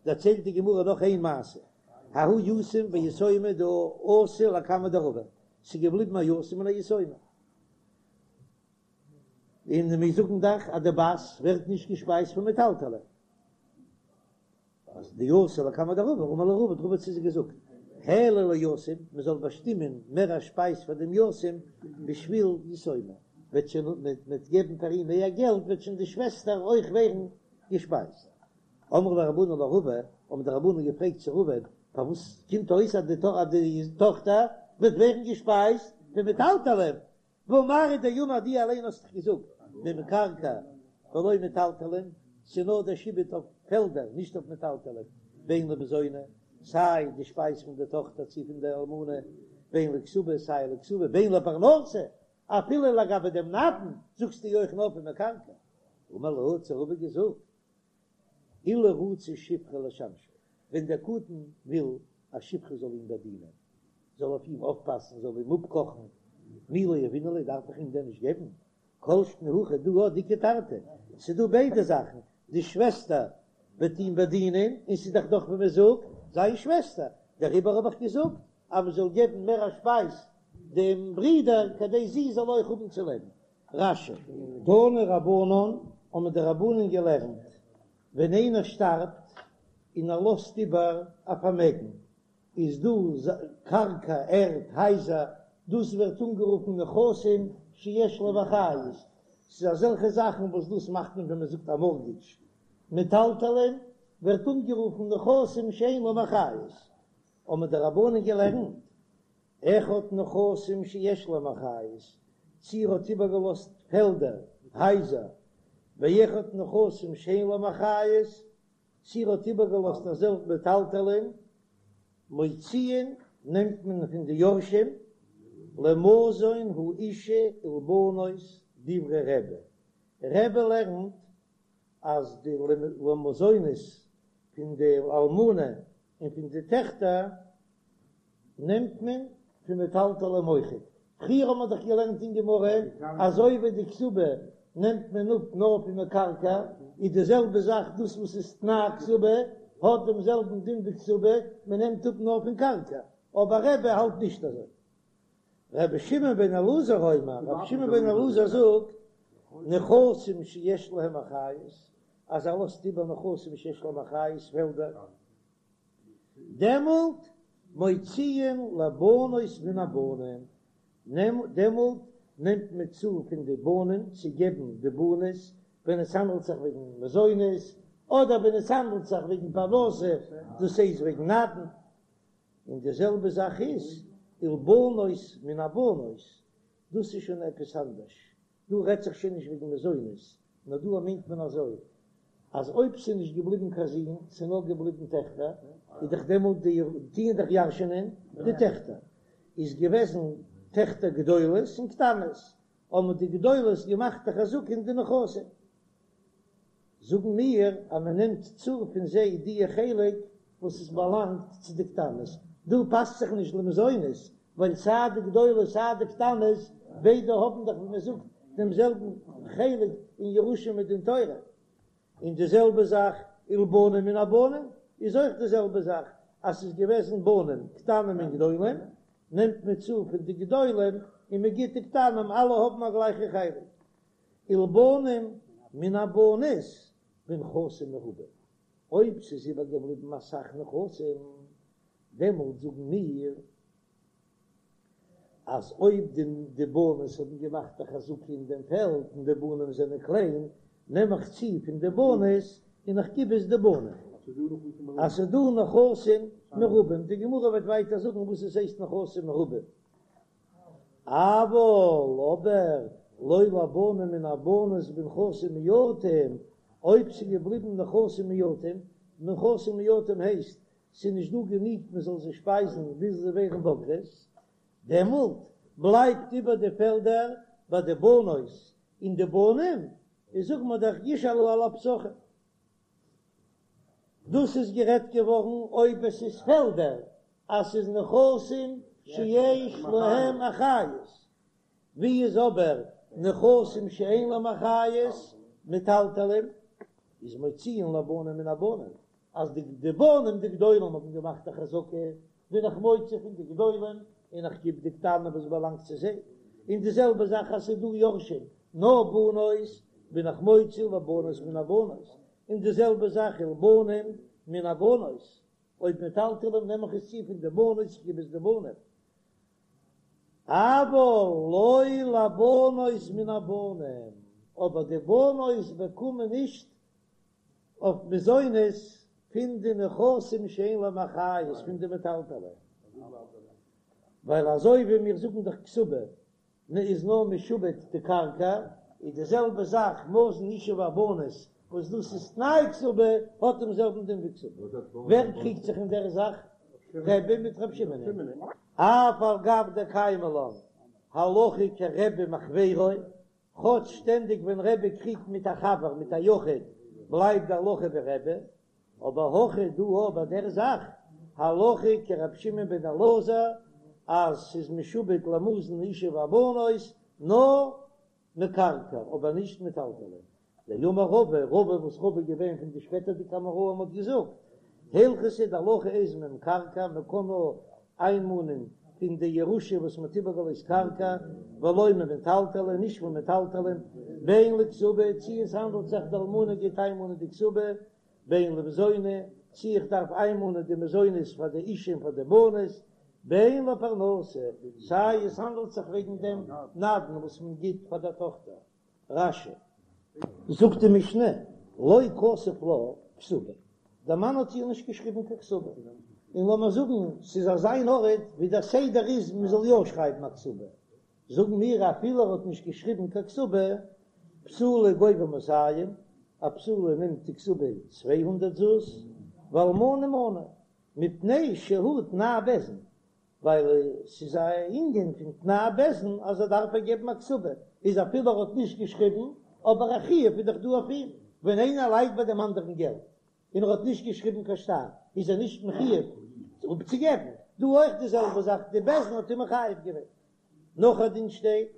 דערציילט די גמרא נאך איין מעשה, ההוא יתום ויתומה דאתו לקמיה דרבא, ס'איז געבליבן א יתום און א יתומה, און מיר זאגן דאך אז די בת ווערט נישט געשפייזט פון מטלטלי. אז דאתו לקמיה דרבא, אמר להו רבא, האט רבא צו זיי געזאגט, העלו ליתום, מען זאל באשטימען מער א שפייז פאר דעם יתום, בשביל יתומה, וועט שוין מען וועט געבן פאר אים מער געלט, וועט שוין די שוועסטער אויך ווערן געשפייזט. אמרו ליה רבנן לרבא, האבן די רבנן געפרעגט צו רבא, פארוואס קומט אויס אז די טאכטער וועט ווערן געשפייזט פון מטלטלין, והא מר הוא דאמר דו אליין האסט דאך געזאגט ממקרקעי ולא מטלטלין, ס'איז נאר דער שעבוד אויף פעלדער נישט אויף מטלטלין, בין למזוני, סיי די שפייז פון די טאכטער צי פון די אלמנה, בין לכתובה סיי לכתובה, בין לפרנסה, אפילו לגבי דעם נדן זאגסטו אויך נאר פון מקרקעי. אמר להו האט זיי רבא געזאגט אילו רצה שפחה לשמשו, ווען דער קטן וויל א שפחה זאל אים באדינען, זאל אויף אים אויפפאסן, זאל אים אפקאכן, מי לא יהבינן ליה, דארף איך אים דען נישט געבן? כל שכן הכא דא הא דאיכא תרתי, ס'איז דא ביידע זאכן, די שוועסטער וועט אים באדינען, און ס'איז דאך דאך ווי מען זאגט, זיין שוועסטער, דעריבער האב איך געזאגט אז מען זאל געבן מער א שפייז דעם ברודער כדי זי זאל אויך האבן צו לעבן. רש"י. תנו רבנן, האבן די רבנן געלערנט, ווען איינער שטארבט און ער לאזט איבער א פארמעגן, איז דא קרקע, ערד, הייזער, דאס ווערט אנגערופן נכסים שיש להם אחריות, ס'איז אזעלכע זאכן וואס דאס מאכט מען ווען מען זאגט א מארטגעדזש, מטלטלין ווערט אנגערופן נכסים שאין להם אחריות, האבן די רבנן געלערנט, אחד נכסים שיש להם אחריות, צי ער האט איבערגעלאזט פעלדער, הייזער, ואחד נכסים שאין להם אחריות, צי ער האט איבערגעלאזט אזעלכע מטלטלין, מוציאין נעמט מען פון די יורשים, למזון האשה ולבנות דברי רבי, רבי לערנט אז די למזונות פון די אלמנה און פון די טעכטער נעמט מען פון מטלטלים אויכעט. פריער האט מען דאך געלערנט אין גמרא אזוי ווי די כתובה נעמט מען אפ נאר פון מקרקעי, איז די זעלבע זאך דאס וואס איז תנאי כתובה האט דעם זעלבן דין ווי כתובה, מען נעמט אפ נאר פון קרקע, אבער רבי האלט נישט אזוי. רבי שמעון בן אלעזר אומר, רבי שמעון בן אלעזר זאגט, נכסים שיש להם אחריות, אז ער לאזט איבער נכסים שיש להם אחריות, פעלדער, דעמאלט מוציאין לבנות מן הבנים, דעמאלט נעמט מען צו פון די בנים צו געבן די בנות, ווען עס האנדלט זיך וועגן מזונות, אדער ווען עס האנדלט זיך וועגן פרנסה, דאס הייסט וועגן נדן. און די זעלבע זאך איז ולבנות מן הבנות, דאס איז שוין עפעס אנדערש, דא רעדט זיך שוין נישט וועגן מזונות, נאר דא מיינט מען אזוי, אז אויב ס'איז נישט געבליבן קיין זין, ס'איז נאר געבליבן טעכטער, איז דאך דעמאלט די טוען דאך ירש'ענען די טעכטער, איז געוועזן טעכטער גדולות און קטנות, האבן די גדולות געמאכט א חזקה אין די נכסים. זאגן מיר אז מען נעמט צו פון זיי די חלק וואס עס באלאנגט צו די קטנות, דא פאסט זיך נישט למזונות, ווייל סיי די גדולות סיי די קטנות ביידע האבן דאך ווי מען זאגט דעם זעלבן חלק אין ירושה מדין תורה, און די זעלבע זאך ולבנים מן הבנים איז אויך די זעלבע זאך, אז ס'איז געוועזן בנים קטנים און גדולים נעמט מען צו פון די גדולים און מען גיט די קטנים, אלע האבן א גלייכע חלק. ולבנים מן הבנות בנכסים מרובים, אויב ס'איז איבערגעבליבן אסאך נכסים, דעמאלט זאגן מיר אז אויב די בנות האבן געמאכט א חזקה אין דעם פעלד און די בנים זענען קליין, נעם איך צו פון די בנות און איך גיב עס די בנים. אז ס'איז דא נכסים מרובים, די גמרא וועט ווייטער זאגן וואס עס הייסט נכסים מרובים. אבל אבער לא לבנים מן הבנות בנכסים מועטים, אויב ס'איז געבליבן נכסים מועטים, נכסים מועטים הייסט ס'איז נישט דא גענוג מען זאל זיי שפייזן ביז זיי ווערן בוגרות, דעמאלט בלייבט איבער די פעלדער ביי די בנות און די בנים, איז זאגן מיר דאך ישאלו על הפתחים. דאס איז גערעדט געווארן אויב עס איז פעלדער אז ס'איז נכסים שיש להם אחריות, ווי איז אבער נכסים שאין להם אחריות, מטלטלים, איז מוציאין לבנים מן הבנים. אז די די בנים די גדולים האבן געמאכט א חזקה, בין איך מוציא פון די גדולים און איך גיב די קטנים וואס באלאנגט צו זיי, און די זעלבע זאך אז ס'איז דא יורשים נאר בנות, בין איך מוציא לבנות מן הבנות, און די זעלבע זאך ולבנים מן הבנות, אויב מטלטלים נעם איך עס צו פון די בנות איך גיב עס די בנים. אבל לא לבנות מן הבנים, אבער די בנות באקומען נישט אויף מזונות פון די נכסים שאין להם אחריות פון די מטלטלין, ווייל אזוי ווי מיר זאגן דאך כתובה איז נאר משועבד די קרקע, איז די זעלבע זאך מזון אשה והבנות וואס דאס איז תנאי כתובה האט דעם זעלבן דין ווי כתובה. ווער קריגט זיך אין דער זאך? רבי מיט רבי שמעון. אף על גב דקיימא לן הלכה כרבי מחבירו, כאטש שטענדיג ווען רבי קריגט מיט א חבר מיט א יחיד בלייבט די הלכה ווי רבי, אבער הכא דא ביי דער זאך הלכה כרבי שמעון בן אלעזר אז ס'איז משועבד למזון אשה והבנות נאר מקרקע אבער נישט מטלטלין. דאמר רבא, רבא וואס רבא איז געווען פון די שפעטערדיגע אמוראים האט געזאגט, הלכתא די הלכה איז ממקרקע מען קען נאר איינמאנען פון די ירושה וואס מען האט איבערגעלאזט קרקע, ולא ממטלטלין, נישט פון מטלטלין, בין לכתובה, צי עס האנדלט זיך די אלמנה גייט איינמאנען די כתובה, בין למזוני, צי איך דארף איינמאנען די מזונות פאר די אישה און פאר די בנות, בין לפרנסה, סיי עס האנדלט זיך וועגן דעם נדן וואס מען גיט פאר דער טאכטער. רש"י. זאגט די משנה, לא כתב לה כתובה, דער מאן האט איר נישט געשריבן קיין כתובה, און לאמיר זאגן ס'איז אזא אן ארט ווי דער סדר איז מען זאל יא שרייבן א כתובה, זאגן מיר אפילו ער האט נישט געשריבן קיין כתובה, בתולה גובה מאתים, א בתולה נעמט די כתובה 200 זוז, ואלמנה מנה, מפני שהוא תנאי בית דין, ווייל ס'איז א ענין פון תנאי בית דין אז ער דארף איר געבן א כתובה, איז אפילו ער האט נישט געשריבן, אבער א חיוב איז דאך דא אויף אים, ווען איינער לייט ביי דעם אנדערן געלט און ער האט נישט געשריבן קיין שטר, איז ער נישט מחויב אפצוגעבן, דא אויך די זעלבע זאך, די בית דין האט אים מחייב געווען. נאך א דין שטייט,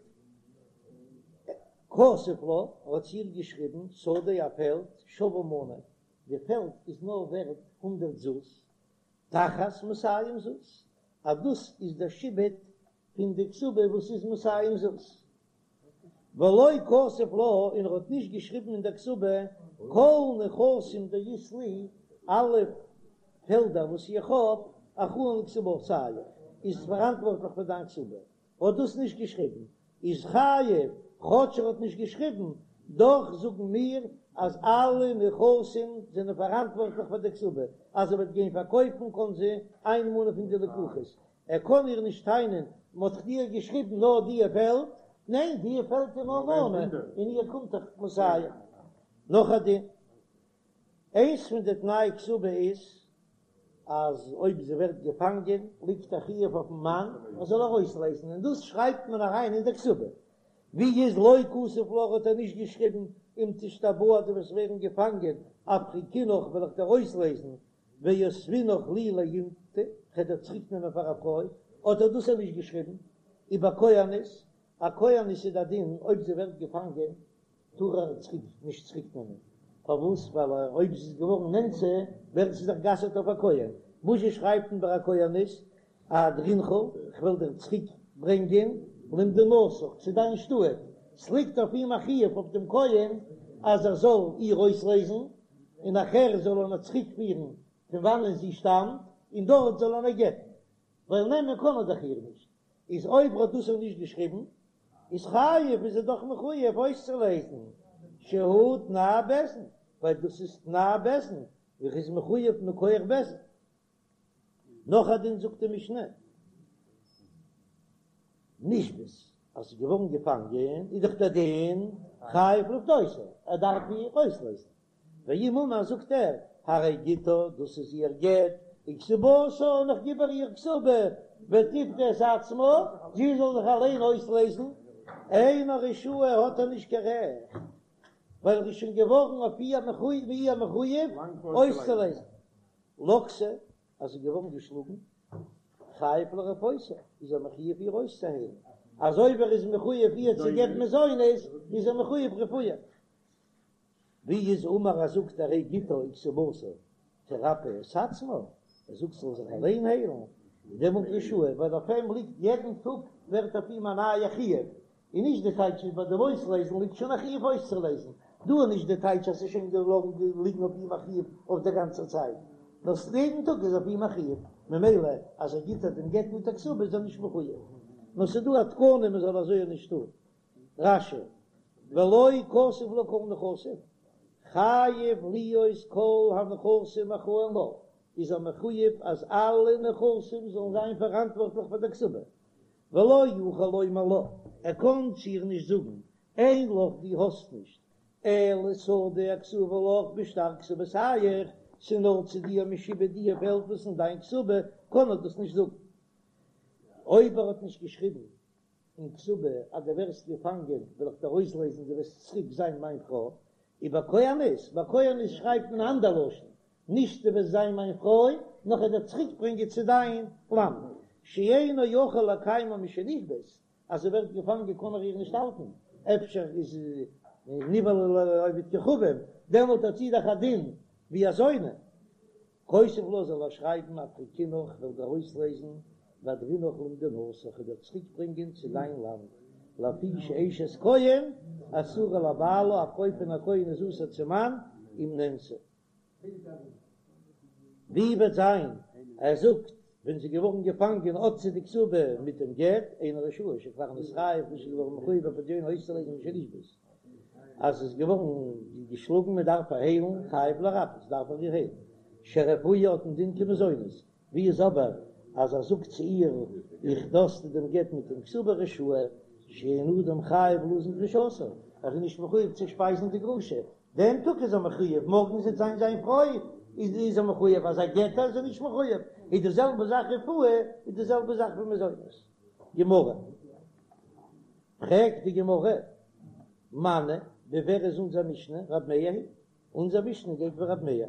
כתב לה, ער האט צו איר געשריבן, שדה א פעלד, שווה מנה, די פעלד איז נאר ווערט הונדרעט זוז, תחת מאתים זוז, אז דאס איז דער שעבוד פון די כתובה וואס איז מאתים זוז. ולא כתב לה, און ער האט נישט געשריבן אין דער כתובה, כל נכסים דאית לי, אלע פעלדער וואס איך האב, אחראין לכתובתיך, איז פאראנטווארטליך פאר דיין כתובה. האט דאס נישט געשריבן איז חייב, כאטש ער האט נישט געשריבן, דאך זאגן מיר אז אלע נכסים זענען פאראנטווארטליך פאר די כתובה, אז ער וועט גיין פארקויפן קען זי איינמאנען פון די לקוחות, ער קען איר נישט טענה'ן מען האט דיר געשריבן נאר דיע פעלד, ניין דיע פעלד איז נאר מנה און איר קומט דאך מאתים. נאך א דין, איינס פון די תנאי כתובה איז אז אויב זי ווערט געפאנגען ליגט א חיוב אויפן מאן ער זאל איר אויסלייזן און דאס שרייבט מען אריין אין די כתובה. ווי איז לא כתב לה האט ער נישט געשריבן אם תשתבאי דו וועסט ווערן געפאנגען אפריקינך וועל איך דיר אויסלייזן ואותבינך לי לאינתו כ'וועל דיר צוריק נעמען פאר א פרוי האט ער דאס נישט געשריבן איבער כהנת א כהנת איז די דין אויב זי ווערט געפאנגען טאר ער צוריק נישט צוריק נעמען, פארוואס? ווייל אויב זי איז געווארן נאנסה ווערט זי דאך גע'אסר'ט אויף א כהן, וואזשע שרייבט מען ביי א כהנת, אהדרינך, כ'וועל דיר צוריק ברענגען למדינתך, צו דיין שטאט, ס'ליגט אויף אים א חיוב אויף דעם כהן אז ער זאל איר אויסלייזן, און נאכער זאל ער איר צוריק פירן פון וואנען זי שטאמט, און דארט זאל ער איר גט'ן, ווייל נעמען קען ער דאך איר נישט, איז אויב ער האט דאס נישט געשריבן, איז חייב איז ער דאך מחויב אויסצולייזן שהוא תנאי בית דין, ווייל דאס איז תנאי בית דין, ער איז מחויב מכח בית דין. נאך א דין זאגט די משנה, נשבית, אז ס'איז געווארן געפאנגען איז דאך דער דין חייב לפדותה, ער דארף איר אויסלייזן, ואם אמר זאגט ער, הרי גיטה, דאס איז איר גט, וכתובתה, און איך גיב איר איר כתובה, ותפדה את עצמה, זי זאל זיך אליין אויסלייזן, אינו רשאי האט ער נישט קיין רעכט, ווייל ער איז שוין געווארן אויף איר מחויב אויסצולייזן. לקתה, אז זי איז געווארן געשלאגן, חייב לרפאותה, איז ער מחויב איר אויסצוהיילן, אזוי ווי ער איז מחויב איר צו געבן מזונות, איז ער מחויב רפואה. ווי איז אמר אז זאגט הרי גיטה וכתובתה? תרפא את עצמה, ער זאגט זאל זיך אליין היילן, איז דעמאלט רשאי, ווייל אויף אים ליגט יעדן טאג ווערט אויף אים א נייע חיוב, און נישט די טייטש איז ביי דעם אויסלייזן ליגט שוין א חיוב אויסצולייזן, דא איז נישט די טייטש אז ס'איז שוין געלאגן ליגן אויף אים א חיוב אויף דער גאנצער צייט, נאר יעדן טאג איז אויף אים א חיוב, ממילא אז ער גיט איר דעם גט מיט א כתובה איז ער נישט מחויב, נאר ס'איז דא א תקנה מען זאל אזוי נישט טון. רש"י, ולא כתב לה כל נכסים, חייב להיות כל הנכסים אחראין לה, איז ער מחויב אז אלע נכסים זאלן זיין פאראנטווארטליך פאר דער כתובה, ולא יוכל לומר לה, ער קען צו איר נישט זאגן, אין לך דו האסט נישט, אלא שדה הכתובה לך בשטר כתובתיך, ס'איז נאר צו דיר משועבד די פעלד וואס אין דיין כתובה, קען ער דאס נישט זאגן. אויב ער האט נישט געשריבן אין כתובה אז דו ווערסט געפאנגען וועל איך דיר אויסלייזן דו וועסט צוריק זיין מיין פרוי, ובכהנת, ביי כהנת שרייבט מען א אנדער לשון, נישט דו וועסט זיין מיין פרוי, נאר כ'וועל דיר צוריק ברענגען צו דיין לאנד, שאינו יכול לקיימה משנשבית, אז זי ווערט געפאנגען קען ער איר נישט האלטן, אפשר איז נבעלה לעובד כוכבים, דעמאלט האט זי דאך א דין ווי א זונה. כותב לה זאל ער שרייבן אפריקינך כ'וועל דיר אויסלייזן ואהדרינך למדינתך כ'וועל דיר צוריק ברענגען צו דיין לאנד לפי שאשת כהן אסורה לבעלה א פרוי פון א כהן איז אסור צום מאן אם נאנסה. ווי וועט זיין ער זאגט ווען זי איז געווארן געפאנגען האט זי די כתובה מיט דעם גט אינו רשאי שכבר נתחייב וואס איז געווארן מחויב בפדיונה אויסצולייזן משנשבית אז עס איז געווארן געשלאגן מען דארף איר היילן חייב לרפאות דארף ער איר היילן שרפואה האט א דין כמזונות ווי איז אבער אז ער זאגט צו איר איך דא האסטו דעם גט מיט דעם כתובה רשאי שאין אדם חייב לזון גרושתו ער איז נישט מחויב צו שפייזן די גרושה דעם טאג איז ער מחויב מארגן זי וועט זיין זיין פרוי איז ער מחויב אז ער גט איר איז ער נישט מחויב איז די זעלבע זאך רפואה איז די זעלבע זאך ווי מזונות גמרא. פרעגט די גמרא, מני, ווי ווער איז אונזער משנה? רב מאיר היא, אונזער משנה גייט ווי רב מאיר,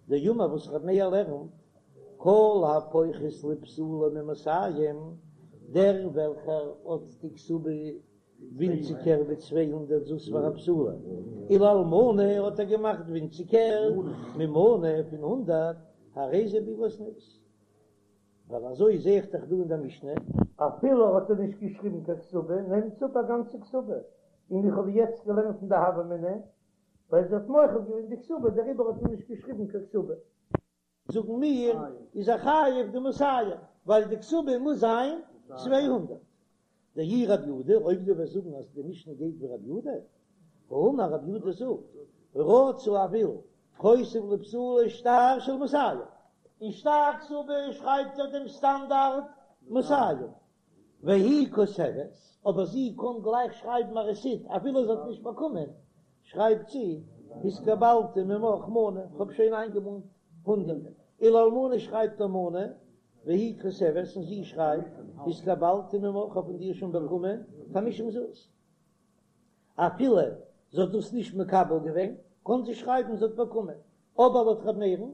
דאמר וואס רב מאיר לערנט, כל הפוחת לבתולה ממאתים, דער וועלכער האט די כתובה ווינציגער ווי 200 זוז פאר א בתולה, ולאלמנה האט ער געמאכט ווינציגער ממנה פון הונדערט, הרי זה בעילת זנות. ווייל אזוי זעה איך דאך דא אין דער משנה. אפילו האט ער נישט געשריבן קיין כתובה, נעמט זי אפ א גאנצע כתובה, און איך האב יעצט געלערנט אין די הוה אמינא, ווייל זי האט מוחל געווען די כתובה, דעריבער האט מען נישט געשריבן קיין כתובה. זאגן מיר, איז ער חייב די מאתים, ווייל די כתובה מוז זיין 200. דאי רב יהודה, אויב דו וועסט זאגן אז די משנה גייט ווי רב יהודה, האמר רב יהודה זאגט, רצה ער וויל, כותב לבתולה שטר של מאתים, אין שטר כתובה שרייבט ער דעם סטאנדארט מאתים, והיא כותבת, אבער זי קען גלייך שרייבן א רעסיט אפילו זי האט נישט באקומען, שרייבט זי, התקבלתי ממך מנה, כ'האב שוין איינגעמאנט הונדערט, ולאלמנה שרייבט ער מנה, והיא כותבת און זי שרייבט, התקבלתי ממך, כ'האב פון דיר שוין באקומען חמישים זוז. אפילו זי האט דאס נישט מקבל געווען, קען זי שרייבן זי האט באקומען, אבער לויט ר' מאיר'ן,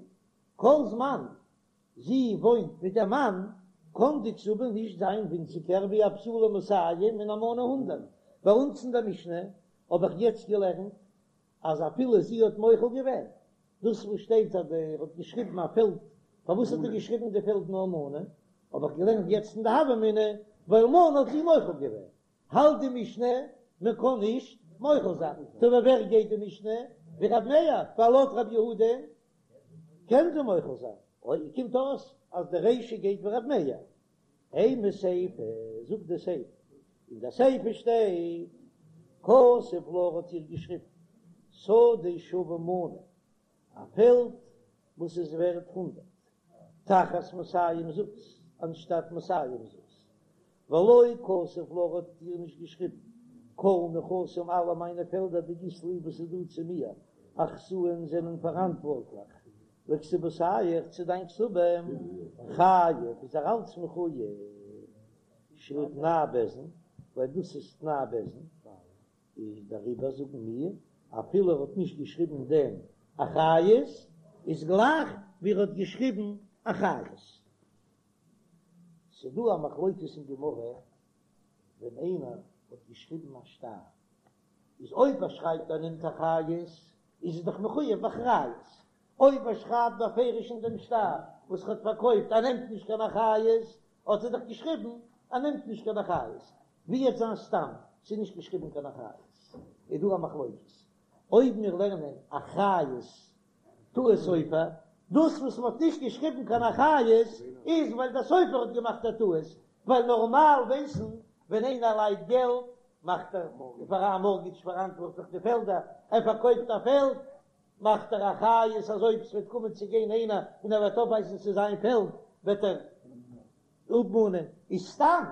כל זמן זי וואוינט מיט דעם מאן, קען די כתובה נישט זיין ווינציגער ווי א בתולה מאתים און אלמנה הונדערט. ביי אונז אין דער משנה האב איך יעצט געלערנט אז אפילו זי האט מוחל געווען, דאס וואס שטייט אז ער האט געשריבן א פעלד, פארוואס האט ער געשריבן די פעלד נאר מנה, האב איך געלערנט יעצט אין די הוה אמינא, ווייל מנה האט זי מוחל געווען, האלט די משנה מען קען נישט מוחל זיין, טא ווי ווער גייט די משנה? ווי רב מאיר, ווייל לויט רב יהודה קען זי מוחל זיין, אוי קומט אויס אז די רישא גייט ווי רב מאיר. אימא סיפא, זאגט די סיפא, אין די סיפא שטייט, כתב לה האט איר געשריבן, שדה שווה מנה, א פעלד וואס איז ווערט הונדערט, תחת מאתים זוז, אנשטאט מאתים זוז, ולא כתב לה האט איר נישט געשריבן, כל נכסים אלע מיינע פעלדער דאית לי וואס איז דא צו מיר, אחראין זענען פאראנטווארטליך, לכתובתיך צו דיין כתובה, חייב איז ער אלץ מחוייב, שהוא תנאי בית דין, ווייל דאס איז תנאי בית דין, איז דעריבער זאגן מיר, אפילו ער האט נישט געשריבן דעם אחריות, איז גלייך ווי ער האט געשריבן אחריות. ס'דא א מחלוקת אין גמרא, ווען איינער האט געשריבן א שטר, איז אויב ער שרייבט ער נעמט אחריות, איז ער דאך מחוייב באחריות. אויב ער שרייבט בפירוש אין דעם שטר וואס ער האט פארקויפט ער נעמט נישט קיין אחריות, האט ער דאך געשריבן ער נעמט נישט קיין אחריות, ווי וועט זיין סתם ס'איז נישט געשריבן קיין אחריות, איז דא א מחלוקת אויב מיר לערנען אחריות טעות סופר, דאס וואס מ'האט נישט געשריבן קיין אחריות איז ווייל דער סופר האט געמאכט א טעות, ווייל נארמאל ווייסן ווען איינער לייט געלט מאכט ער פאר א מארטגעדזש פאראנטווארטליך די פעלדער, ער פארקויפט א פעלד מאכט ער אחריות אז אויב ס'וועט קומען צו גיין איינער און ער וועט אויפווייזן ס'איז זיין פעלד וועט ער אפמאנען, איז סתם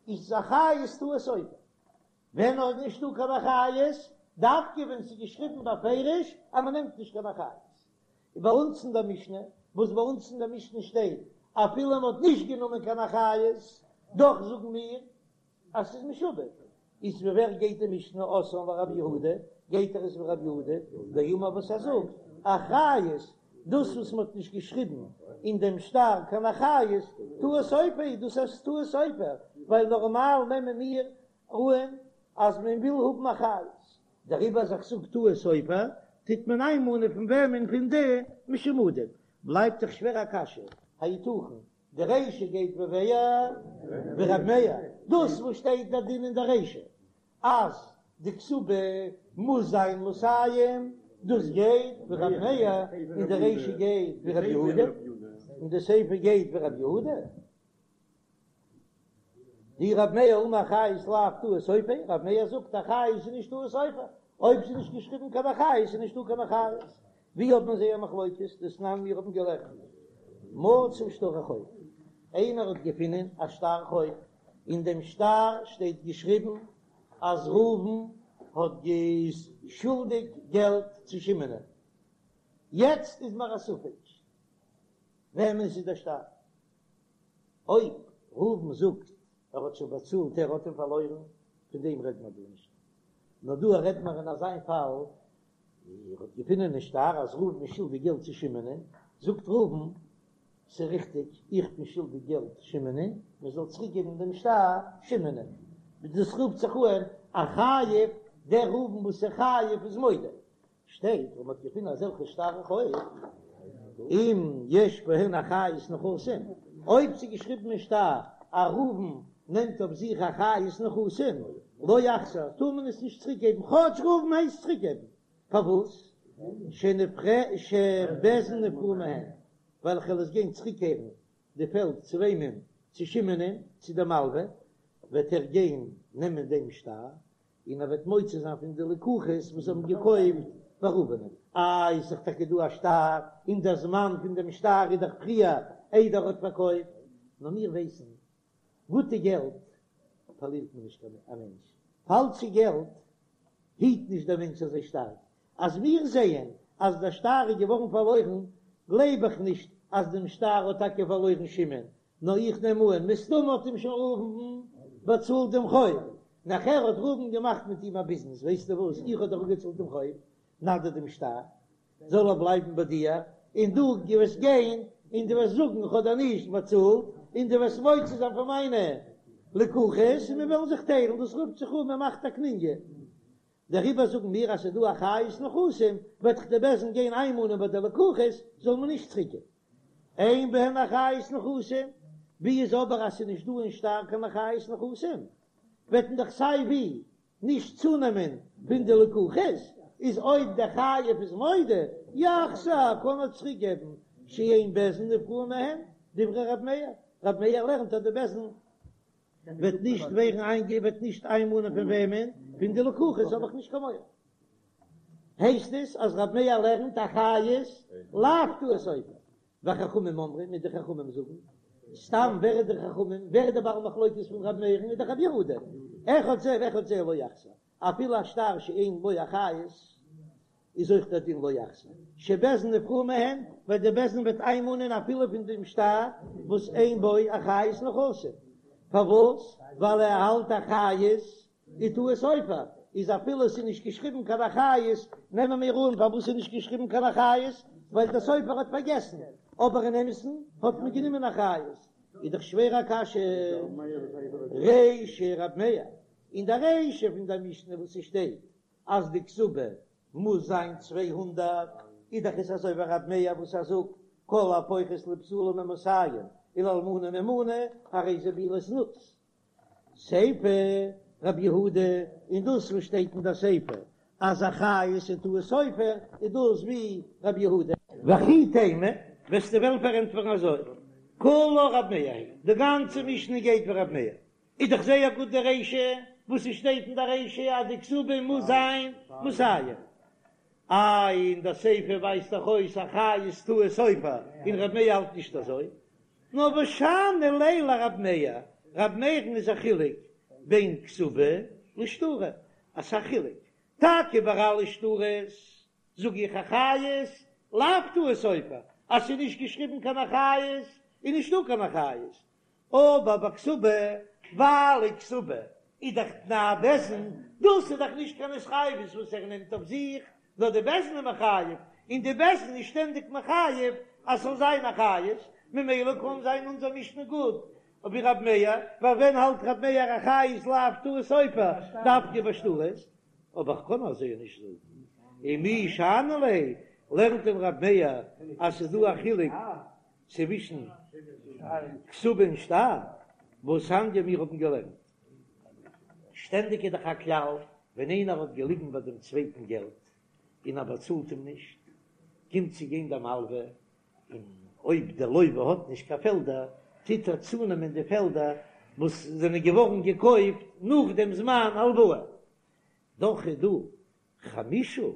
איז אחריות טעות סופר. ווען נאר איז נישטא קיין אחריות, דווקא ווען ס'איז געשריבן בפירוש אז מ'נעמט נישט קיין אחריות. און ביי אונז אין דער משנה, וואס ביי אונז אין דער משנה שטייט אפילו מ'האט נישט גענומען קיין אחריות, דאך זאגן מיר אז ס'איז משועבד. איז ווי ווער גייט די משנה אתאן לרב יהודה, גייט ער עס ווי רב יהודה דאמר וואס ער זאגט, אחריות, דאס וואס מ'האט נישט געשריבן אין דעם שטר קיין אחריות, טעות סופר איז דאס איז טעות סופר, ווייל נארמאל נעמען מיר אן אז מען וויל האבן אחריות, דעריבער אז איך זאג טעות סופר, טוט מען איינמאנען פון וועמען פון די משומדים, בלייבט דאך שווער א קשיא, היתכן די רישא גייט ווי ווער? ווי רב מאיר, דאס וואס שטייט דער דין אין די רישא אז די כתובה מוז זיין מאתים, דאס גייט ווי רב מאיר, און די רישא גייט ווי רב יהודה, און די סיפא גייט ווי רב יהודה. דאי רב מאיר אמר אחריות לאו טעות סופר, רב מאיר זאגט אחריות איז נישט טעות סופר, אויב ס'איז נישט געשריבן קיין אחריות איז נישטא קיין אחריות. ווי האט מען זייער מחלוקת? דתנן מיר האבן געלערנט מצא שטרי חוב, איינער האט געפינען א שטר חוב, אין דעם שטר שטייט געשריבן אז ראובן האט גע- שולדיג געלט צו שמעונ'ען, יעצט איז מיר א ספק וועמענס איז דער שטר, אויב ראובן זאגט ער האט שוין באצאלט ער האט אים פארלוירן, פון דעם רעדט מען דא נישט, נאר דא רעדט מען אין אזיין פאל, ער האט געפונען אין שטר אז ראובן איז שולדיג געלט צו שמעונ'ען, זאגט ראובן, ס'איז ריכטיג, איך בין שולדיג געלט שמעונ'ען, מען זאל צוריק געבן דעם שטר שמעונ'ען, דאס רופט זיך אן א חייב, דער ראובן וואס איז חייב איז מודה, שטייט ווען מ'האט געפונען אזעלכע שטרי חוב, אם יש בהן אחריות נכסים, אויב ס'איז געשריבן אין שטר אז ראובן נעמט אויף זיך אחריות נכסים, לא יחזיר, טאר מען עס נישט צוריק געבן, כאטש ראובן הייסט צוריק געבן, פארוואס? שבית דין נפרעין מהן, ווייל כ'וועל עס גיין צוריקקערן די פעלד צו וועמען? צו שמעונ'ען, צו די מלווה, וועט ער גיין נעמען דעם שטר, און ער וועט מוציא זיין פון די לקוחות וואס האבן געקויפט ביי ראובנ'ען. איי איז דאך טאקע דא א שטר, און דער זמן פון דעם שטר איז דאך פריער איידער ער האט פארקויפט, נאר מיר ווייסן, גוטע געלט פארלירט מען נישט א מענטש, פאלשע געלט היט נישט דער מענטש אזוי שטארק, אז מיר זעען אז דער שטר איז געווארן פארלוירן, גלייב איך נישט אז דעם שטר האט טאקע פארלוירן שמעון, נאר איך נעם אן, מסתמא האט אים שוין ראובן באצאלט דעם חוב, נאכער האט ראובן געמאכט מיט אים א ביזנעס, ווייסטו וואס, איך האב דאך אפגעצאלט דעם חוב, נא דיר דעם שטר, זאל ער בלייבן ביי דיר, און דו וועסט גיין און דו וועסט זאגן איך האב דיר נישט באצאלט, און דו וועסט מוציא זיין פון מיינע לקוחות, און מיר וועלן זיך טיילן, דאס רופט זיך אן מען מאכט א קנוניא. דעריבער זאגן מיר אז ס'איז דא אחריות נכסים, וועט דאך די בית דין גיין איינמאנען ביי די לקוחות, זאל מען נישט צוריקגעבן. אין בהן אחריות נכסים, ווי איז אבער אז ס'איז נישט דא אין שטר קיין אחריות נכסים, וועט מען דאך סיי ווי נישט צונעמען פון די לקוחות, איז אויב דער חייב איז מודה, יחזיר, קען ער צוריקגעבן, שאין בית דין נפרעין מהן, דברי ר' מאיר, ר' מאיר לערנט אז די בית דין וועט נישט ווערן איינגע וועט נישט איינמאנען פון וועמען? פון די לקוחות האב איך נישט קיין מורא. הייסט עס אז רב מאיר לערנט אחריות לאו טעות סופר. וחכמים אומרים און די חכמים זאגן, סתם ווער איז די חכמים? ווער איז די בעל מחלוקת פון רב מאיר'ן? איז דאך רב יהודה. אחד זה ואחד זה לא יחזיר. אפילו א שטר שאין בו אחריות איז אויך דער דין לא יחזיר שבית דין נפרעין מהן, ווייל די בית דין וועט איינמאנען אפילו פון דעם שטר וואס אין בו אחריות נכסים, פארוואס? ווייל ער האלט אחריות איז טעות סופר, איז אפילו עס איז נישט געשריבן קיין אחריות, נעמען מיר אן פארוואס איז נישט געשריבן קיין אחריות, ווייל דער סופר האט פארגעסן, אבער אין אמת'ן האט מען גענומען אחריות, איז דאך שווער א קשיא. רישא רב מאיר, אין די רישא פון די משנה וואס ס'שטייט אז די כתובה מוז זיין 200. איז דאך עס אזוי ווי רב מאיר וואס ער זאגט כל הפוחת לבתולה ממאתים ולאלמנה ממנה הרי זה בעילת זנות. סיפא רבי יהודה, און דאס וואס שטייט אין דער סיפא אז אחריות איז טעות סופר, איז דאס ווי רבי יהודה. וכי תימא, וועסטו וועלן פארענטפערן אזוי, כולה רב מאיר היא, די גאנצע משנה גייט ווי רב מאיר, איז דאך זייער גוט די רישא, וואס עס שטייט אין די רישא אז די כתובה מוז זיין מאתים. איי אין די סיפא ווייזט דאך אויס אחריות טעות סופר, און רב מאיר האלט נישט אזוי. נאר ושאני ליה לרב מאיר, רב מאיר'ן איז א חילוק בין כתובה לשטרא, אסאך חילוק, טאקע ביי אלע שטרות זאג איך אחריות לאו טעות סופר, אז ס'איז נישט געשריבן קיין אחריות איז נישטא קיין אחריות, אבער ביי כתובה, ווייל די כתובה איז דאך תנאי בית דין, דאס איז דאך נישט קיין התחייבות וואס ער נעמט אויף זיך, נאר די בית דין איז מחייב, און די בית דין איז שטענדיג מחייב אז ס'זאל זיין אחריות, ממילא קען זיין אונזער משנה גוט ווי רב מאיר, ווייל ווען האלט רב מאיר אחריות לאו טעות סופר דווקא ביי שטרות, אבער כ'קען אזוי נישט זאגן, ומי שאני ליה, לערנט דען רב מאיר אז ס'איז דא א חילוק צווישן כתובה און שטר, והתניא מיר האבן געלערנט. שטענדיג איז דאך א כלל, ווען איינער האט געליגן ביי דעם צווייטן געלט און ער באצאלט אים נישט, קומט צו גיין דער מלווה, און אויב דער לווה האט נישט קיין פעלדער, טוט ער צונעמען די פעלדער וואס זענען געווארן געקויפט נאך דעם זמן הלוואה. דאך איז דא חמשה,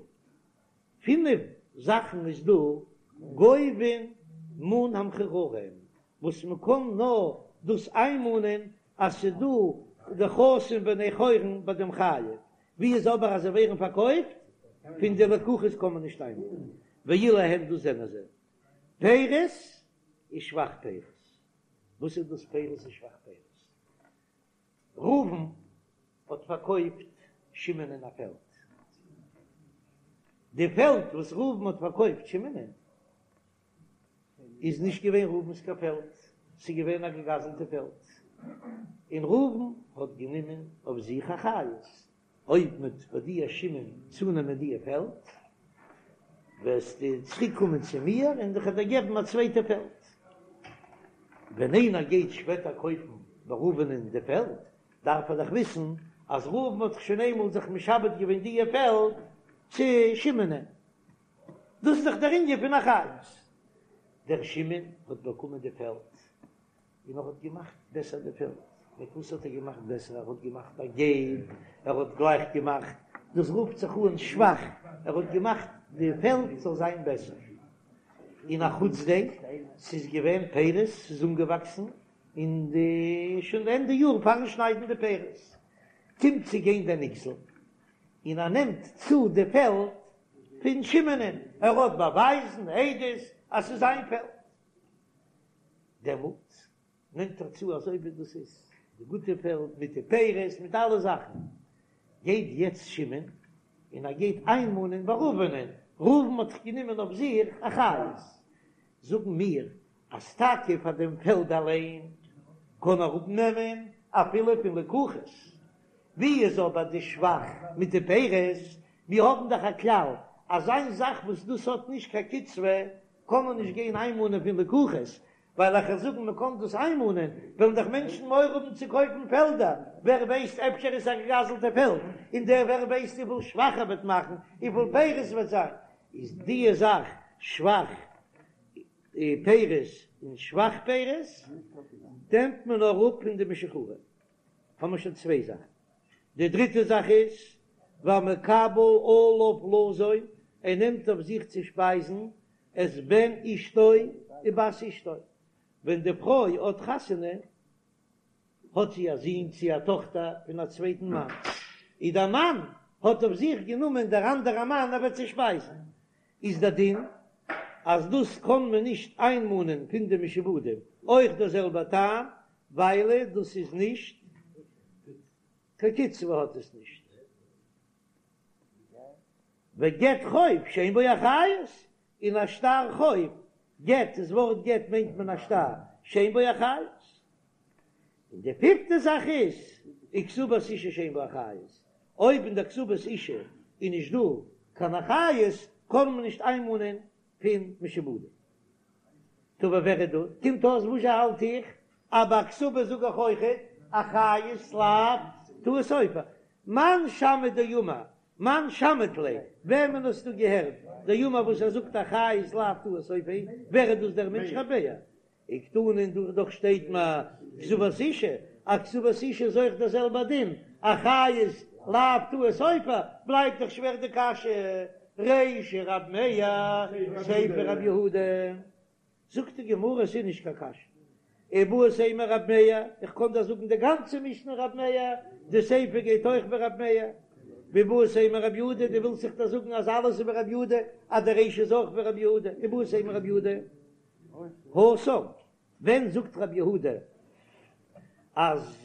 פינף זאכן איז דא גובין מן המחוררין, וואס מען קען נאר דאס איינמאנען אז ס'איז דא נכסים בני חורין ביי דעם חייב, ווי איז אבער אז זיי ווערן פארקויפט פון די לקוחות קען מען נישט איינמאנען, ואלו הן דאס זענען זיי פירות ושבח פירות, וואס איז דאס פירות און שבח פירות? ראובן האט פארקויפט שמעונ'ען א פעלד. די פעלד וואס ראובן האט פארקויפט שמעונ'ען איז נישט געווען ראובן'ס קיין פעלד, ס'איז געווען א געגזלטע פעלד, און ראובן האט גענומען אויף זיך אחריות, אויב מ'וועט ביי דיר שמעון צונעמען די פעלד, וועסטו צוריק קומען צו מיר און איך וועל דיר געבן א צווייטע פעלד. ווען איינער גייט שפעטער קויפן ביי ראובנ'ען די פעלד, דארף ער דאך וויסן אז ראובן האט זיך שוין איינמאל זיך משעבד געווען די פעלד צו שמעונ'ען. דאס איז דאך דער ענין פון אחריות. דער שמעון האט באקומען די פעלד, און ער האט געמאכט בעסער די פעלד. מיט וואס האט ער געמאכט בעסער? ער האט געמאכט א געב, ער האט גלייך געמאכט, דאס רופט זיך אן שבח, ער האט געמאכט די פעלד זאל זיין בעסער. און א חוץ דעם, ס'איז געווען פירות, ס'איז אנגעוואקסן אין די שוין ענדע יאר פארן שניידן די פירות, קומט צו גיין דער נגזל, און ער נעמט צו די פעלד פון שמעונ'ען, ער האט באווייזן, עדות, אז ס'איז זיין פעלד. דעמאלט נעמט ער צו אזוי ווי דאס איז די גוטע פעלד מיט די פירות מיט אלע זאכן, גייט יעצט שמעון און ער גייט איינמאנען ביי ראובנ'ען, ראובן האט זיך גענומען אויף זיך אחריות, זאגן מיר אז טאקע פאר דעם פעלד אליין קען ער אפנעמען אפילו פון לקוחות, ווי איז אבער די שבח מיט די פירות, מיר האבן דאך א כלל אז איין זאך וואס דאס האט נישט קיין קצבה קען מען נישט גיין איינמאנען פון לקוחות, ווייל איך וועל זאגן מען קען דאס איינמאנען, וועלן דאך מענטשן מורא האבן צו קויפן פעלדער, ווער ווייסט אפשר איז א געגזלטע פעלד, און דער ווער ווייסט וויפיל שבח ער וועט מאכן, וויפיל פירות וועט זיין, איז דיע זאך שבח פירות און שבח פירות נעמט מען נאר אפ פון די משוחררים. האבן מיר שוין צוויי זאכן. די דריטע זאך איז, והמקבל עליו לזון, ער נעמט אויף זיך צו שפייזן את בן אשתו ובת אשתו, ווען די פרוי האט חתונה האט זי א זון צי א טאכטער פון א צווייטן מאן, און דער מאן האט אויף זיך גענומען דער אנדערע מאן ער וועט זי שפייזן, איז דער דין אז דאס קען מען נישט איינמאנען פון די משועבדים, אויך דער זעלבער טעם, וויילע דאס איז נישט קיין קצבה האט עס נישט. וגט חוב שאין בו אחריות, און א שטר חוב, גט, דאס ווארט גט מיינט מען א שטר, שאין בו אחריות. און די פיפטע זאך איז, וכתובת אשה שאין בה אחריות, אויב אין דער כתובת אשה איז נישט דא קיין אחריות, קען מען נישט איינמאנען פון משועבדים. טא ווער איז דא? קומט אויס וואס זשע האלט איך? אז ביי כתובה זאג איך אויכעט אחריות לאו טעות סופר. מאן שמעת דאמר מאן שמעת ליה, וועמען האסטו געהערט דאמר וואס ער זאגט אחריות לאו טעות סופר, ווער איז דאס דער מענטש ר' מאיר? וקתני און דא דאך שטייט מיר כתובת אשה, אז כתובת אשה איז אויך דער זעלבער דין, אחריות לאו טעות סופר, בלייבט דאך שווער די קשיא, רישא רב מאיר, סיפא רב יהודה. זאגט די גמרא עס איז נישט קיין קשיא, איבעית אימא רב מאיר, איך קען דאך זאגן די גאנצע משנה רב מאיר, די סיפא גייט אויך ווי רב מאיר, ואיבעית אימא רב יהודה, דו ווילסט זיך דאך זאגן אז אלעס איז ווי רב יהודה, אז די רישא איז אויך ווי רב יהודה, איבעית אימא רב יהודה, התם, ווען זאגט רב יהודה אז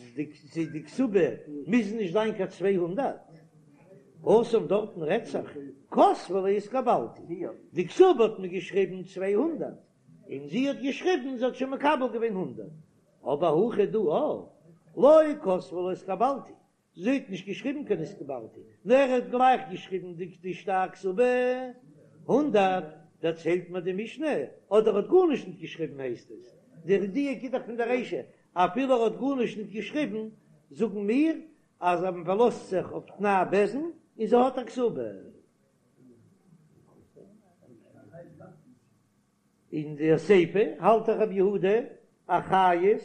די כתובה מוז נישט זיין קיין 200? התם דארטן רעדט זיך כתבה ליה התקבלתי, די כתובה האט מען געשריבן 200 און זי האט געשריבן זי האט שוין מקבל געווען הונדערט, אבער הכא דא לא כתבה ליה התקבלתי, זי האט נישט געשריבן קיין התקבלתי, נאר ער האט גלייך געשריבן די די שטר כתובה הונדערט, דערציילט מיר די משנה, אדער האט גארנישט ניט געשריבן הייסט עס, דער דיוק איז דאך פון דער רישא, אפילו ער האט גארנישט ניט געשריבן, זאגן מיר אז מען פארלאזט זיך אויף תנאי בית דין און זי האט א כתובה. אין די סיפא האלט דאך רבי יהודה אחריות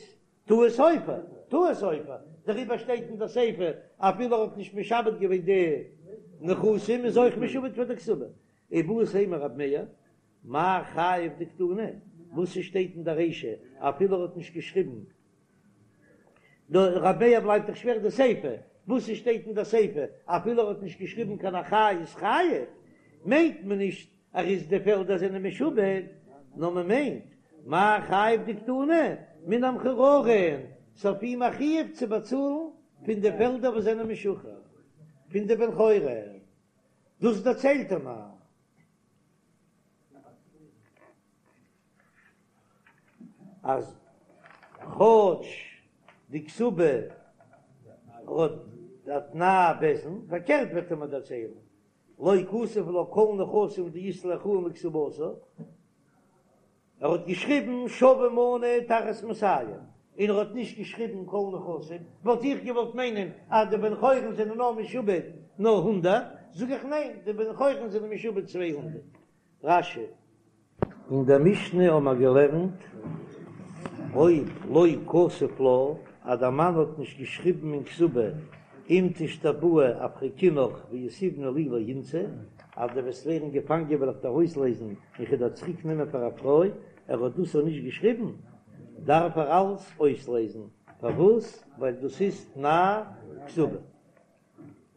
טעות סופר, טעות סופר, דעריבער שטייט אין די סיפא אפילו ער האט נישט משעבד געווען די נכסים איז אויך משועבד פאר די כתובה. איבעית אימא רב מאיר, מאי חייב דקתני, וואס ס'שטייט אין די רישא אפילו ער האט נישט געשריבן, רב מאיר בלייבט דאך שווער די סיפא, וואס ס'שטייט אין די סיפא אפילו ער האט נישט געשריבן קיין אחריות חייב, מיינט מען נישט ער איז די פעלדער זענען משועבד, נאר מען מיינט מאי חייב דקתני מן המחוררין, ס'אויף אים א חיוב צו באצאלן פון די פעלדער וואס זענען משוחרר פון די בן חורין, דאס דערציילט ער מיר. אז כאטש די כתובה האט א תנאי בית דין, פארקערט וועט ער מיר דערציילן, לא כתב לה כל נכסים דאית ליה אחראין לכתובתה, ער האט געשריבן שווה מנה תחת מאתים, און ער האט נישט געשריבן כל נכסים, וואלט איך געוואלט מיינען אז די בן חורין זענען נאר משועבד נאר הונדערט, זאג איך ניין, די בן חורין זענען משועבד 200. רש"י. אין דער משנה האבן מיר געלערנט, אויב לא כתב לה, אז דער מאן האט נישט געשריבן אין כתובה, אם תשתבאי אפרקינך ויתיבנא לי לאינתא, אז דו וועסט ווערן געפאנגען וועל איך דיר אויסלייזן און כ'וועל דיר צוריק נעמען פאר א פרוי, ער האט דאס אויך נישט געשריבן, דארף ער אלס אויסלייזן, פארוואס? ווייל דאס איז תנאי כתובה.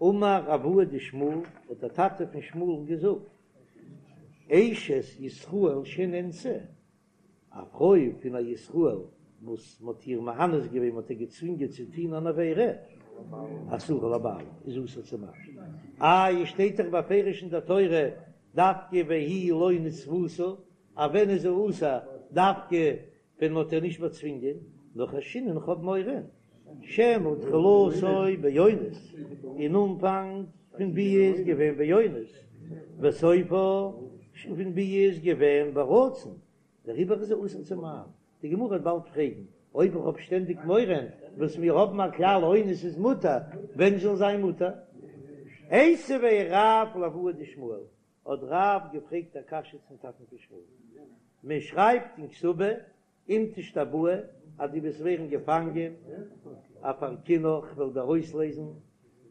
אמר אבוה דשמואל, האט דער טאטע פון שמואל'ן געזאגט, אשת ישראל שנאנסה, א פרוי פון א ישראל וואס מען האט איר מאנס געווען, מען האט איר געצווינגען צו טון אן עבירה, אסורה לבעלה, איז אסור צום מאן. איי, שטייט דאך בפירוש אין דער תורה דווקא והיא לא נתפשה, אז ווען איז זי אסור דווקא ווען מ'האט איר נישט באצווינגען, נאר חיישינן כ'האב מורא שמא תחילתו באונס, אין אנפאנג פון ביאה איז געווען באונס, וסופו פון ביאה איז געווען ברצון, דעריבער איז זי אסור צום מאן. די גמרא וועט באלד פרעגן, אויב איך האב שטענדיג מורא, וואס מיר האבן א כלל אונס איז מותר, ווען זאל זיין מותר? איתיביה רב לאבוה דשמואל, האט רב געפרעגט א קשיא צום טאטן פון שמואל, מען שרייבט אין כתובה אם תשתבאי אז דו וועסט ווערן געפאנגען, אפרקינך כ'וועל דיר אויסלייזן,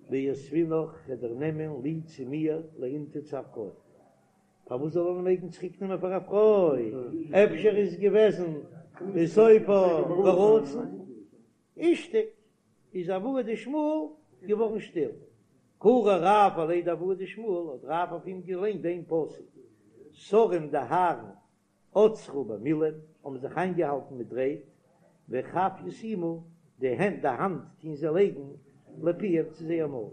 ויתבינך כ'וועל דיר נעמען לי צו מיר לאינתא צו א פרוי. פארוואס זאל ער מעגן צוריק נעמען פאר א פרוי? אפשר איז געוועזן וסופה ברצון? אישתיק, איז אבוה דשמואל געווארן שטיל. קרא רב עליה דאבוה דשמואל, האט רב אויף אים געליינט דעם פסוק, שרים די הארן עצרו במילין, האבן זיך איינגעהאלטן מיט רייד, וכף ישימו, די הענט, די האנט טוהן זיי לייגן לפיהם צו זייער מויל.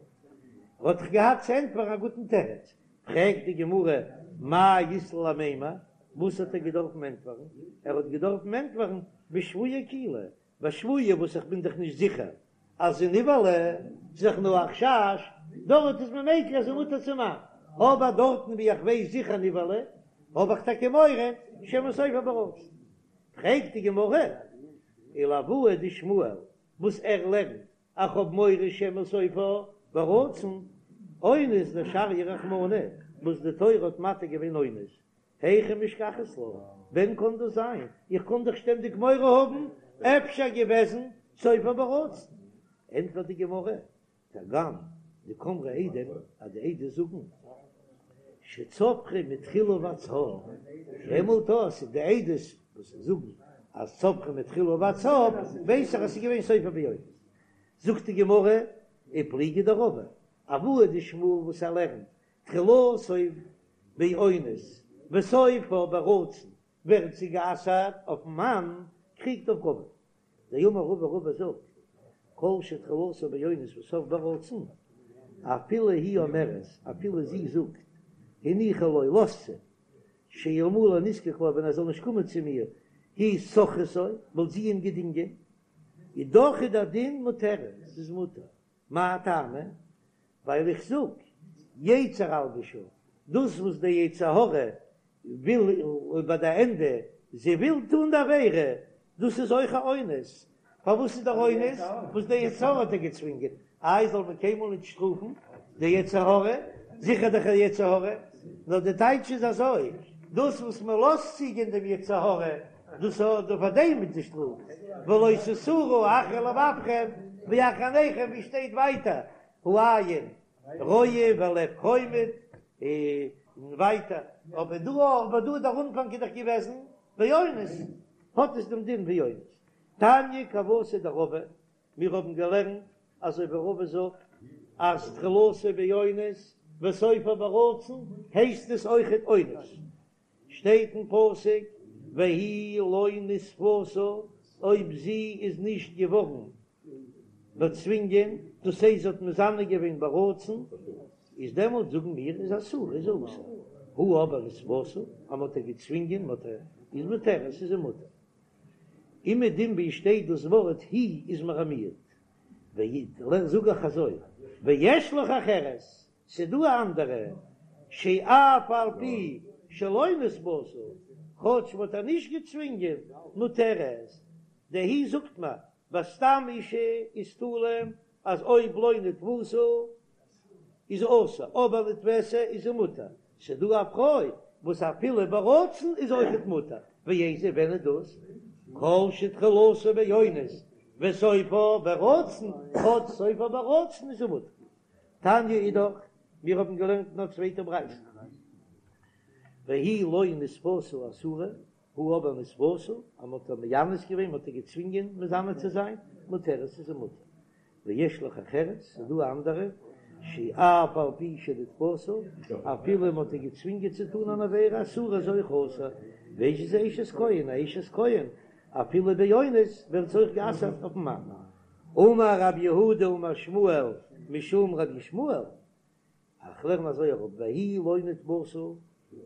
ער האט דאך געהאט צו ענטפערן א גוטן תירוץ. פרעגט די גמרא, מאי אית ליה למימר, וואס האט ער געדארפן ענטפערן? ער האט געדארפן ענטפערן בשבויה אקילו, בשבויה וואס איך בין דאך נישט זיכער אז זי נבעלה, ס'איז דאך נאר א חשש, דארט איז מען מיקל אז זי מותר צום מאן. אבער דארטן ווי איך ווייס זיכער נבעלה, האב איך טאקע מורא שמא סופה ברצון. פרעגט די גמרא, ולאבוה דשמואל, וואס ער לערנט איך האב מורא שמא סופה ברצון, אונס דשריא רחמנא, וואס די תורה האט מתיר געווען אונס, היכי משכחת לה, ווען קען דאס זיין? איך קען דאך שטענדיג מורא האבן, אפשר געוועזן סופה ברצון. ענטפערט די גמרא, כגון דקאמרי עדים, אז די עדות זאגן שצווחה מתחילה ועד סוף, דעמאלט אז די עדות וואס זאגן אז צווחה מתחילה ועד סוף, ווייס איך אז ס'איז געווען סופה באונס. זאגט די גמרא, ופליגא דרבא, אבוה דשמואל וואס ער לערנט תחילתו באונס וסופה ברצון ווערט זי גע'אסר'ט אויפן מאן, קריגט אויף רבא. דאמר רבא רבא זאגט, כל שתחילתו באונס וסופה ברצון, אפילו היא אומרת, אפילו זי זאגט, הניחי לו, לאזט זי, שאלמלא נזקק לה, ווען ער זאל נישט קומען צו מיר, היא שוכרתו, וואלט זי אים געדינגען, איז דאך איז דער דין מותרת, ס'איז מותר. מאי טעמא? ווייל איך זאג, יצר אלבשה, דאס וואס דער יצר הרע וויל ביי די ענדע, זי וויל טון די עבירה, דאס איז אויך א אונס. פארוואס איז דער אונס? וואס דער יצר הרע האט איר געצווינגען. איי זאל מען קיינמאל נישט שטראפן די יצר הרע? זיכער דאך א יצר הרע. נאר די טייטש איז אזוי, דאס וואס מען לאזט צוגיין דעם יצר הרע, דאס האט פאר דעם מיט די שטראף, ולא תתורו אחרי לבבכם ואחרי עיניכם, ווי שטייט ווייטער, העין רואה והלב חומד, און ווייטער, אבער דא אבער דא דער אנפאנג איז דאך געוועזן באונס, האט עס דעם דין ווי אונס. תניא כוותיה דרבא, מיר האבן געלערנט אזוי ווי רבא זאגט אז תחילתו באונס וסופו ברצון הייסט עס אויכעט אונס, שטייט אין פסוק והיא לא נתפשה, אויב זי איז נישט געווארן באצווינגען, דאס הייסט זי האט מזנה געווען ברצון, איז דעמאלט זאגן מיר איז אסורה איז אסור, הא אבער נתפשה, אז מען האט איר געצווינגען, מען האט איר, איז מותרת איז זי מותר. אומעדום ווי שטייט דאס ווארט היא איז מיר א מיעוט, ואי, זאג איך אזוי, ויש לך אחרת, ס'דא א אנדערע, שאף על פי שלא נתפשה, כאטש מ'האט איר נישט געצווינגען, מותרת, די היא זאגט מיר, ביי סתם אישה איז תלוי אז אויב לא נתפשה איז אסור, אבער נתפסה איז זי מותר, ס'דא א פרוי וואס אפילו ברצון איז אויכעט מותר, ואיזו ווען איז דאס? כל שתחילתו באונס וסופו ברצון, כאטש סופו ברצון איז זי מותר. תניא אידך, מיר האבן געלערנט אין א צווייטע ברייתא, והיא לא נתפשה אסורה, הא אבער נתפשה, אז מ'האט איר מאנס געווען, מ'האט איר געצווינגען מזנה צו זיין, מותרת איז זי מותר. ויש לך אחרת, ס'איז דא א אנדערע, שאף על פי שנתפשה, אפילו מ'האט איר געצווינגען צו טון אן עבירה אסורה איז אויך אסור, ואיזו היא אשת כהן, א אשת כהן, אפילו באונס ווערט זי אויך גע'אסר'ט אויפ'ן מאן. אמר רב יהודה אמר שמואל משום רבי ישמעאל, איך לערן אזוי אראפ, והיא לא נתפשה,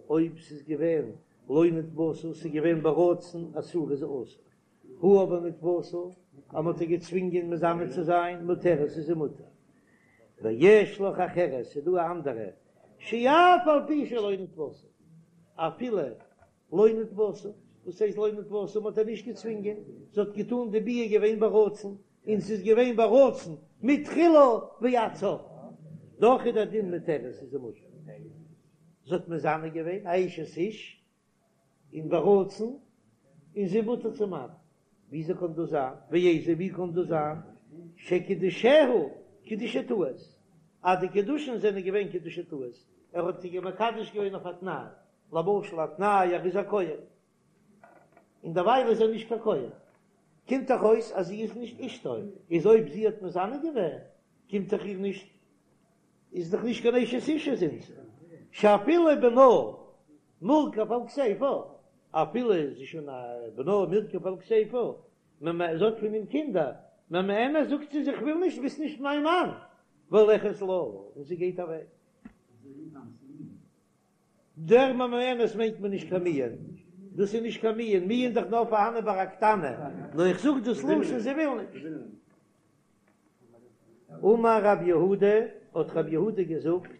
אויב ס'איז געווען לא נתפשה, ס'איז געווען ברצון אסורה איז אסור, הא אבער נתפשה, אז מ'האט איר געצווינגען מזנה צו זיין, מותרת איז זי מותר. ויש לך אחרת, ס'איז דא א אנדערע, שאף על פי שלא נתפשה, אפילו לא נתפשה, וואס הייסט לא נתפשה? מ'האט איר נישט געצווינגען, זי האט געטאן די ביאה געווען ברצון, און ס'איז געווען ברצון מתחילה ועד סוף, דאך איז דער דין מותרת איז זי מותר. זי האט מזנה געווען א אשת איש און ברצון, און זי מותר צום מאן. וויאזוי קען דאס זיין? ואיזו ווי קען דאס זיין? שקידושיה קידושי טעות, אז די קידושין זענען געווען קידושי טעות, ער האט זי מקדש געווען אויף א תנאי, למשל א תנאי ער איז א כהן, און דערווייל איז ער נישט קיין כהן, קומט דאך אויס אז זי איז נישט אשתו, איז אויב זי האט מזנה געווען קומט דאך איר נישט, איז דאך נישט קיין אשת איש זינט שאפילו בנה מורכב על כתיפה, אפילו איז זי שוין א בנה מורכב על כתיפה, ממ זי האט פון אים קינדער, ממאנת זאגט זי זיך וויל נישט ביסט נישט מיין מאן, והולכת לה, און זי גייט אוועק. דער ממאנת מיינט מען נישט קיין מיאון, דאס איז נישט קיין מיאון, מיאון איז דאך נאר פארהאנען ביי א קטנה, נאר איך זאג דאס לשון זי וויל נישט. אמר רב יהודה, האט רב יהודה געזאגט.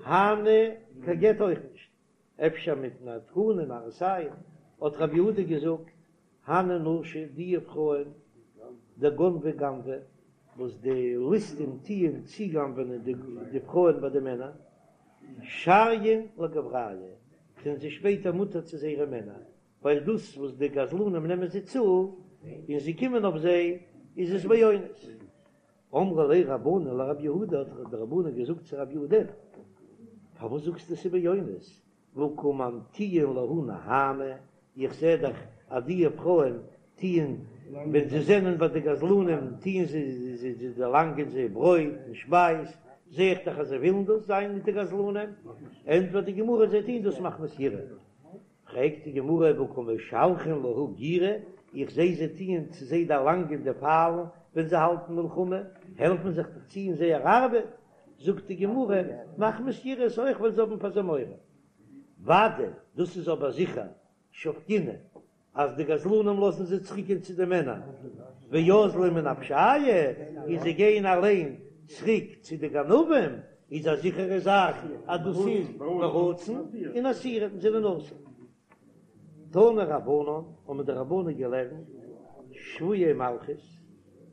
הני קיין גט אויך נישט, אפשר מפני תקנה מראית עין, האט רבי יהודה געזאגט, הני נשי די פרויען דגנבי גנבי, וואס די ליסטים טוען צוגנב'ענען די פרויען ביי די מענער, שריין לגברייהו, זענען זיי שפעטער מותר צו זייערע מענער, ווייל דאס וואס די גזלנים נעמען זיי צו און זיי קומען אויף זיי איז עס באונס. אמרו ליה רבנן לרב יהודה, האט די רבנן געזאגט צו רב יהודה, פארוואס זאגסטו ס'איז באונס, והא קא ממטיאן להו נהמא, איך זע דאך אז די פרויען טוען ווען זיי זענען ביי די גזלנים טוען זיי זיי דערלאנגען זיי ברויט און שפייז, זע איך דאך אז זיי ווילן דאס זיין מיט די גזלנים, ענטפערט די גמרא זיי טוען דאס מחמת יראה. פרעגט די גמרא והא קא משלחין להו גירי, איך זע זיי טוען צו זיי דערלאנגען די פיילן ווען זיי האלטן מלחמה, העלפן זיך דאך צו אין זייער ארבעט, זאגט די גמרא, מחמת יראה איז אויך ווייל זיי האבן פאר זיי מורא. ודאי, דאס איז אבער זיכער, שבקינהו, אז די גזלנים לאזן זיי צוריקגיין צו די מענער, ואזלי מנפשייהו, און זיי גייען אליין צוריק צו די גנבים, איז א זיכערע זאך אז דאס איז ברצון און אסירין זענען אסור. תנו רבנן, האבן די רבנן געלערנט, שבויי מלכות,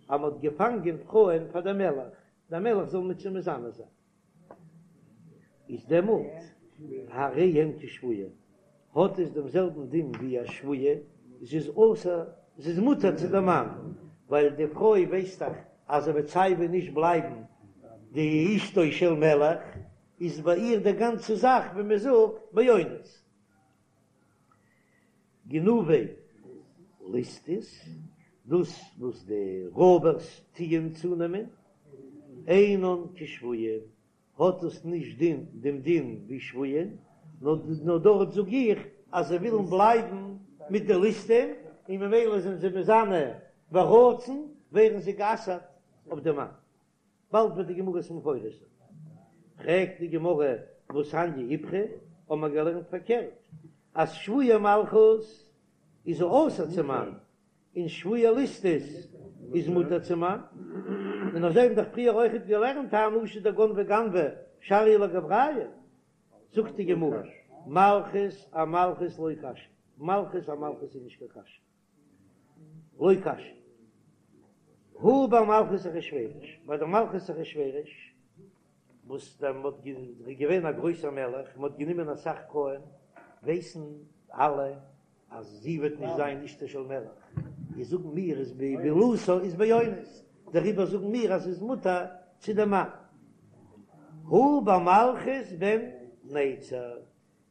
אז מען האט געפאנגען פרויען פאר דעם מלך, דער מלך זאל מיט זיי מזנה זיין. איז דעמאלט הרי הן כשבויה, האט עס דעם זעלבן דין ווי א שבויה, זי איז אסור, זי איז מותר צו דעם מאן, ווייל די פרוי ווייסט דאך אז זי וועט סייווי נישט בלייבן די אשתו של מלך, איז ביי איר די גאנצע זאך ווי מען זאגט באונס. גנובי ליסטות, דאס וואס די רויבערס טוען צונעמען, אינן כשבויים, האט עס נישט דין דעם דין ווי שבויים, נאר דארט זאג איך אז זיי ווילן בלייבן מיט די ליסטים, און ממילא זענען זיי מזנה ברצון, ווערן זיי גע'אסר'ט אויף די מאן. באלד וועט די גמרא עס מפרש זיין. פרעגט די גמרא והתניא איפכא, האבן מיר געלערנט פארקערט, אז שבויי מלכות איז אסור צום מאן, און שבויי ליסטות איז מותר צום מאן, און אזוי האבן דאך פריער אויכעט געלערנט הני נשי דגנבי גנבי שריא לגברייהו, זאגט די גמרא, מלכות אמלכות לא קשיא, מלכות אמלכות איז נישט קיין קשיא. לא קשיא. הא במלכות אחשורוש, ביי די מלכות אחשורוש, וואס דעמאלט איז געווען א גרויסער מלך, מען האט גענומען אסאך פרויען, ווייסן אלע אז זי וועט נישט זיין אשתו של מלך, איז זאגן מיר איז בעילתה איז באונס, דעריבער זאגן מיר אז ס'איז מותר צו דעם מאן. הא במלכות בן נצר,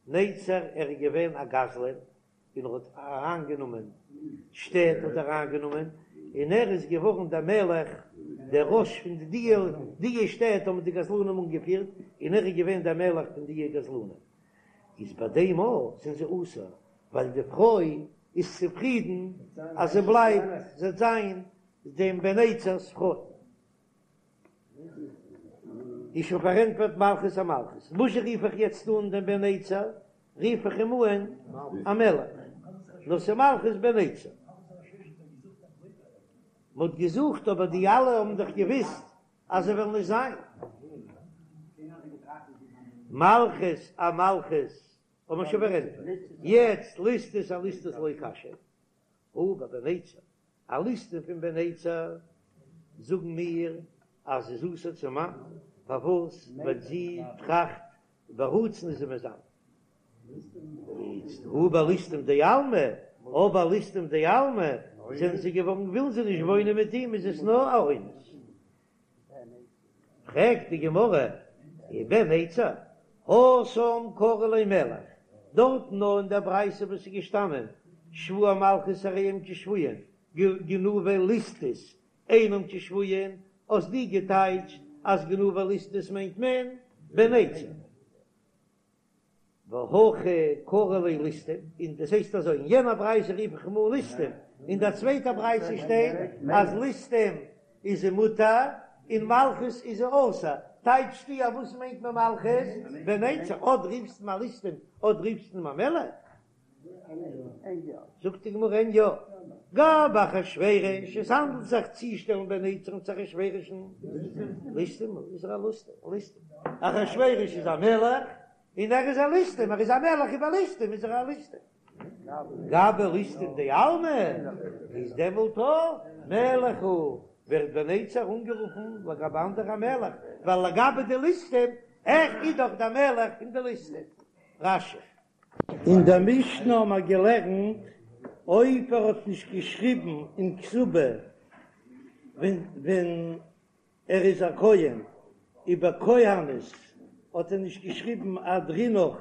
נצר ער איז געווען א גזלן, און ער האט אריינגענומען שטעט האט ער אריינגענומען, און ער איז געווארן דער מלך, דער ראש פון די די די שטעט האבן די גזלנים אנגעפירט, און ער איז געווען דער מלך פון די גזלנים. איז ביי דעם אויך זענען זיי אסור, ווייל די פרוי איז צופרידן אז זי בלייבט, זי וועט זיין דעם בן נצר'ס פרוי. איז שוין פארענטפערט מלכות אמלכות. וואס רוף איך יעצט אן דעם בן נצר? רוף איך אים אן א מלך. נאר ס'איז מלכות בן נצר. מ'האט געזוכט אבער די אלע האבן דאך געוויסט אז זיי וועלן נישט זיין. מלכות אמלכות האט מען שוין פארענטפערט. יעצט ליסטות אליסטות לא קשיא. הא בבן נצר, א ליסטים פון בן נצר, זאגן מיר אז זי איז אסור צום מאן, פארוואס? ווייל זי טראכט ברצון איז זי מזנה. איצט הא בליסטים דעלמא, אבער ליסטים דעלמא זענען זיי געווארן ווילן זיי נישט וואוינען מיט אים איז עס נאר א אונס. פרעגט די גמרא, ובן נצר, התם קרי ליה מלך, דארטן נאר אין דער ברייתא וואס איז געשטאנען שבויי מלכות הרי הם כשבויין, גנובי ליסטות אינם כשבויין, האסט דו געטייטשט אז גנובי ליסטות מיינט מען בן נצר. והכא קרי ליה ליסטים, און דאס הייסט אזוי, אין יענע ברייתא רוף איך אים אן ליסטים, אין דער צווייטער ברייתא שטייט אז ליסטים איז זי מותר און מלכות איז זי אסור, טייטשסטו אז וואס מיינט מען מלכות? בן נצר, אט רופסט אים א ליסטים, אט רופסט אים א מלך? זאגט די גמרא אין יא. גבי אחשורוש, עס האנדלט זיך צושטעלן בן נצר'ן צו אחשורוש'ן, ליסטים הוא, איז ער א ליסטים, אחשורוש איז א מלך, און ער איז א ליסטים, ער איז א מלך איבער ליסטים איז ער א ליסטים. גבי ליסטים דעלמא, איז דעמאלט א מלך הוא, ווערט בן נצר אנגערופן לגבי אנדערע א מלך, ווייל לגבי די ליסטים, ער איז דאך דער מלך פון די ליסטים. רש"י. אין דער משנה האבן מיר געלערנט, אויב ער האט נישט געשריבן אין כתובה ווען ווען ער איז א כהן, ובכהנת האט ער נישט געשריבן אהדרינך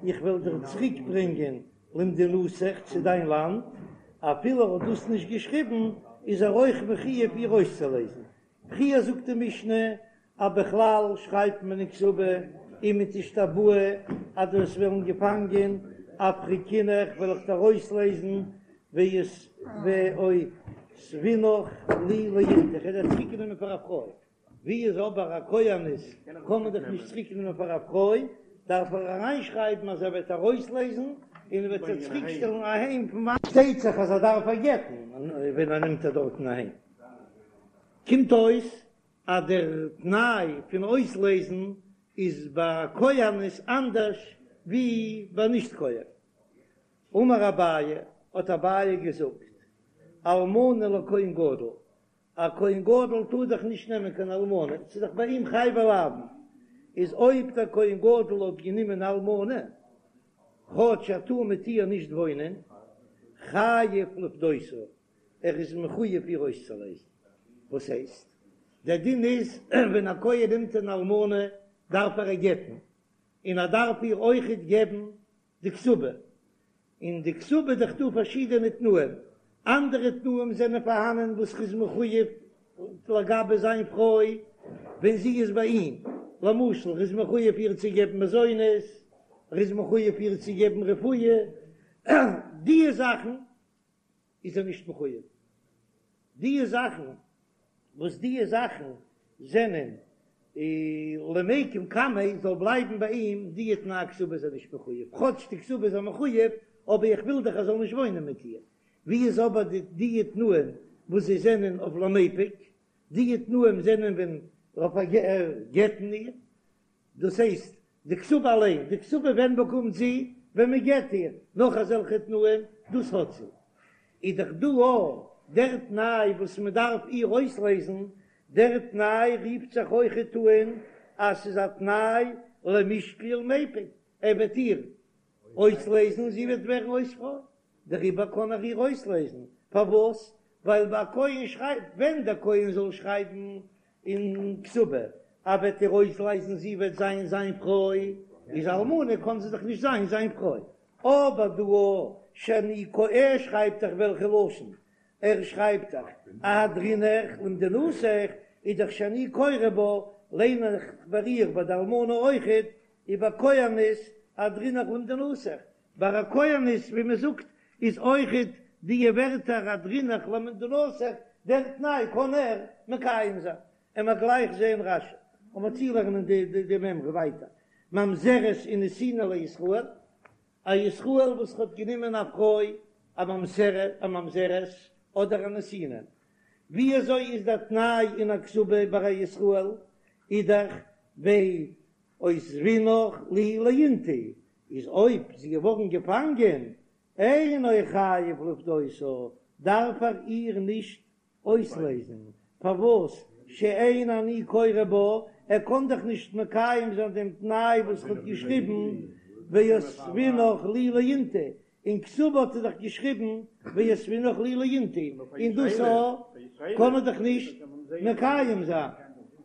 איך וועל דיר צוריק ברענגען למדינתך צו דיין לאנד, אפילו ער האט דאס נישט געשריבן איז ער אויך מחויב איר אויסצולייזן. פריער זאגט די משנה אז בכלל שרייבט מען אין כתובה אם תשתבאי אז דו וועסט ווערן געפאנגען אפריקינך וועל איך דיר אויסלייזן ואותבינך לי לאינתו איך וועל דיר צוריקנעמען פאר א פרוי, ווי איז אבער א כהנת קען מען דאך נישט צוריקנעמען פאר א פרוי, דארף ער אריינשרייבן אז ער וועט איר אויסלייזן און ער וועט איר צוריקשטעלן אהיים פון וואנען. שטייט זיך אז ער דארף איר גט'ן ווען ער נעמט איר דארטן אהיים, קומט אויס אז דער תנאי פון אויסלייזן איז ביי א כהנת אנדערש ווי ביי נישט כהן. אמר אביי, האט אביי געזאגט, אלמנה לכהן גדול, א כהן גדול טאר דאך נישט נעמען קיין אלמנה, ס'איז דאך ביי אים חייבי לאוין, איז אויב דער כהן גדול האט גענומען אלמנה, כאטש ער טאר מיט איר נישט וואוינען, חייב לפדותה, ער איז מחויב איר אויסצולייזן. וואס הייסט? דער דין איז ווען א כהן נעמט אן אלמנה דארף ער איר גט'ן, און ער דארף איר אויכעט געבן די כתובה. אין די כתובה איז דאך דא פארשידענע תנאים, אנדערע תנאים זענען פארהאנען וואס ר'איז מחויב לגבי זיין פרוי ווען זי איז ביי אים, למשל ר'איז מחויב איר צו געבן מזונות, ר'איז מחויב איר צו געבן רפואה, דיע זאכן איז ער נישט מחויב, דיע זאכן וואס דיע זאכן זענען למיקם קמיה זאל בלייבן ביי אים, דיע תנאי כתובה איז ער נישט מחויב, כאטש די כתובה איז ער מחויב, אבער איך וויל דאך ער זאל נישט וואוינען מיט איר. ווי איז אבער די דיע תנאים וואס זיי זענען אויף למיפק, דיע תנאים זענען ווען אויף גט'ן איר, דאס הייסט, די כתובה אליין, די כתובה ווען באקומט זי? ווען מען גט איר, נאך אזעלכע תנאים, דאס האט זי. איז דאך דא אויך דער תנאי וואס מען דארף איר אויסלייזן, דער תנאי רופט זיך אויכעט אן אז ס'איז א תנאי למישקל ולמיפק, ער וועט איר אויסלייזן, זי וועט ווערן אויס פרוי, דעריבער קען ער איר אויסלייזן, פארוואס? ווייל ביי א כהן שרייבט, ווען דער כהן זאל שרייבן אין כתובה, ער וועט איר אויסלייזן זי וועט זיין זיין פרוי, איז אלמנה קען זי דאך נישט זיין זיין פרוי, אבער דא שאני קורא ער שרייבט דאך וועלכע לשון ער שרייבט דאך אהדרינך למדינתך איז דאך שאני קורא בה ליין איך ביי איר ביי די אלמנה אויכעט ובכהנת אהדרינך למדינתך ביי א כהנת ווי מען זאגט איז אויכעט די ווערטער אהדרינך למדינתך דער תנאי קען ער מקיים זיין און מ'עט גלייך זעהן רש"י און מ'עט צולערנען די די מימרא ווייטער ממזרת ונתינה לישראל א ישראל וואס האט גענומען א פרוי א ממזרת א ממזרת אדער א נתינה ווי אזוי איז דער תנאי אין א כתובה ביי א ישראל איז דאך ואותבינך לי לאינתו איז אויב זי געווארן געפאנגען אינו חייב לפדותה דארף ער איר נישט אויסלייזן, פארוואס שאין אני קורא בה, ער קען דאך נישט מקיים זיין דעם תנאי וואס ער האט געשריבן ואותבינך לי לאינתו, אין כתובה האט ער דאך געשריבן ואותבינך לי לאינתו, און דאס א קען ער דאך נישט מקיים זיין,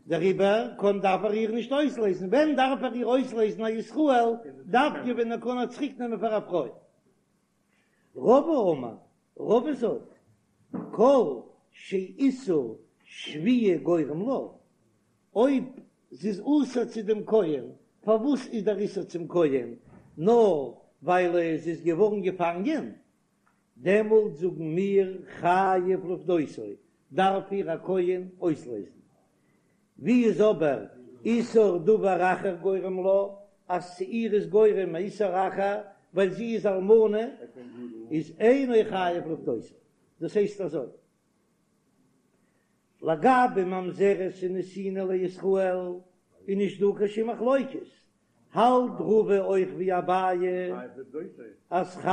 דעריבער קען דארף ער איר נישט אויסלייזן, ווען דארף ער איר אויסלייזן א ישראל, דווקא ווען ער קען איר צוריק נעמען פאר א פרוי. רבא אמר, רבא זאגט, כל שאיסור שביה גורם לה, אויב זי איז אסור צו דעם כהן, פארוואס איז דער איסור צום כהן נאר ווייל זי איז געווארן געפאנגען, דעמאלט זאגן מיר חייב לפדותו, דארף איר א כהן אויסלייזן. ווי איז אבער איסור דבר אחר גורם לה, אז צו איר איז גורם א איסור אחר ווייל זי איז אלמנה, איז אינו חייב לפדותה. דאס הייסט אזוי, לגבי ממזרת און נתינה לישראל איז נישט דא קיין שום מחלוקת, האלט רבא אויך ווי אביי אז אז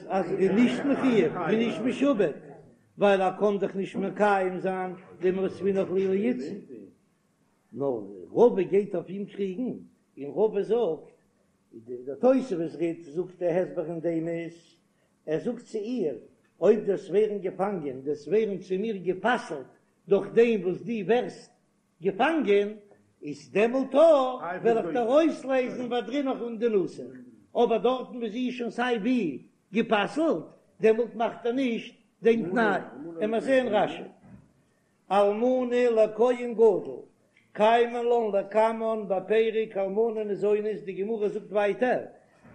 ער איז נישט מחויב און נישט משועבד ווייל ער קען דאך נישט מקיים זיין דעם ואותבינך לי לאיתתא, נאר רבא גייט אויף אים קריגן און רבא זאגט, דער תוספות רי"ד זאגט דער הסבר אין דעם איז, ער זאגט צו איר, אויב דו וועסט ווערן געפאנגען, דו וועסט ווערן צו מיר גע'פסל'ט דורך דעם וואס דו ווערסט געפאנגען, איז דעמאלט וועל איך דיר אויסלייזן ואהדרינך למדינתך, אבער דארטן וואו זי איז שוין סיי ווי גע'פסל'ט, דעמאלט מאכט ער נישט דעם תנאי. עמער זעהן רש"י. אלמנה לכהן גדול, קיימא לן לקמן בפרק אלמנה ניזונית, די גמרא זאגט ווייטער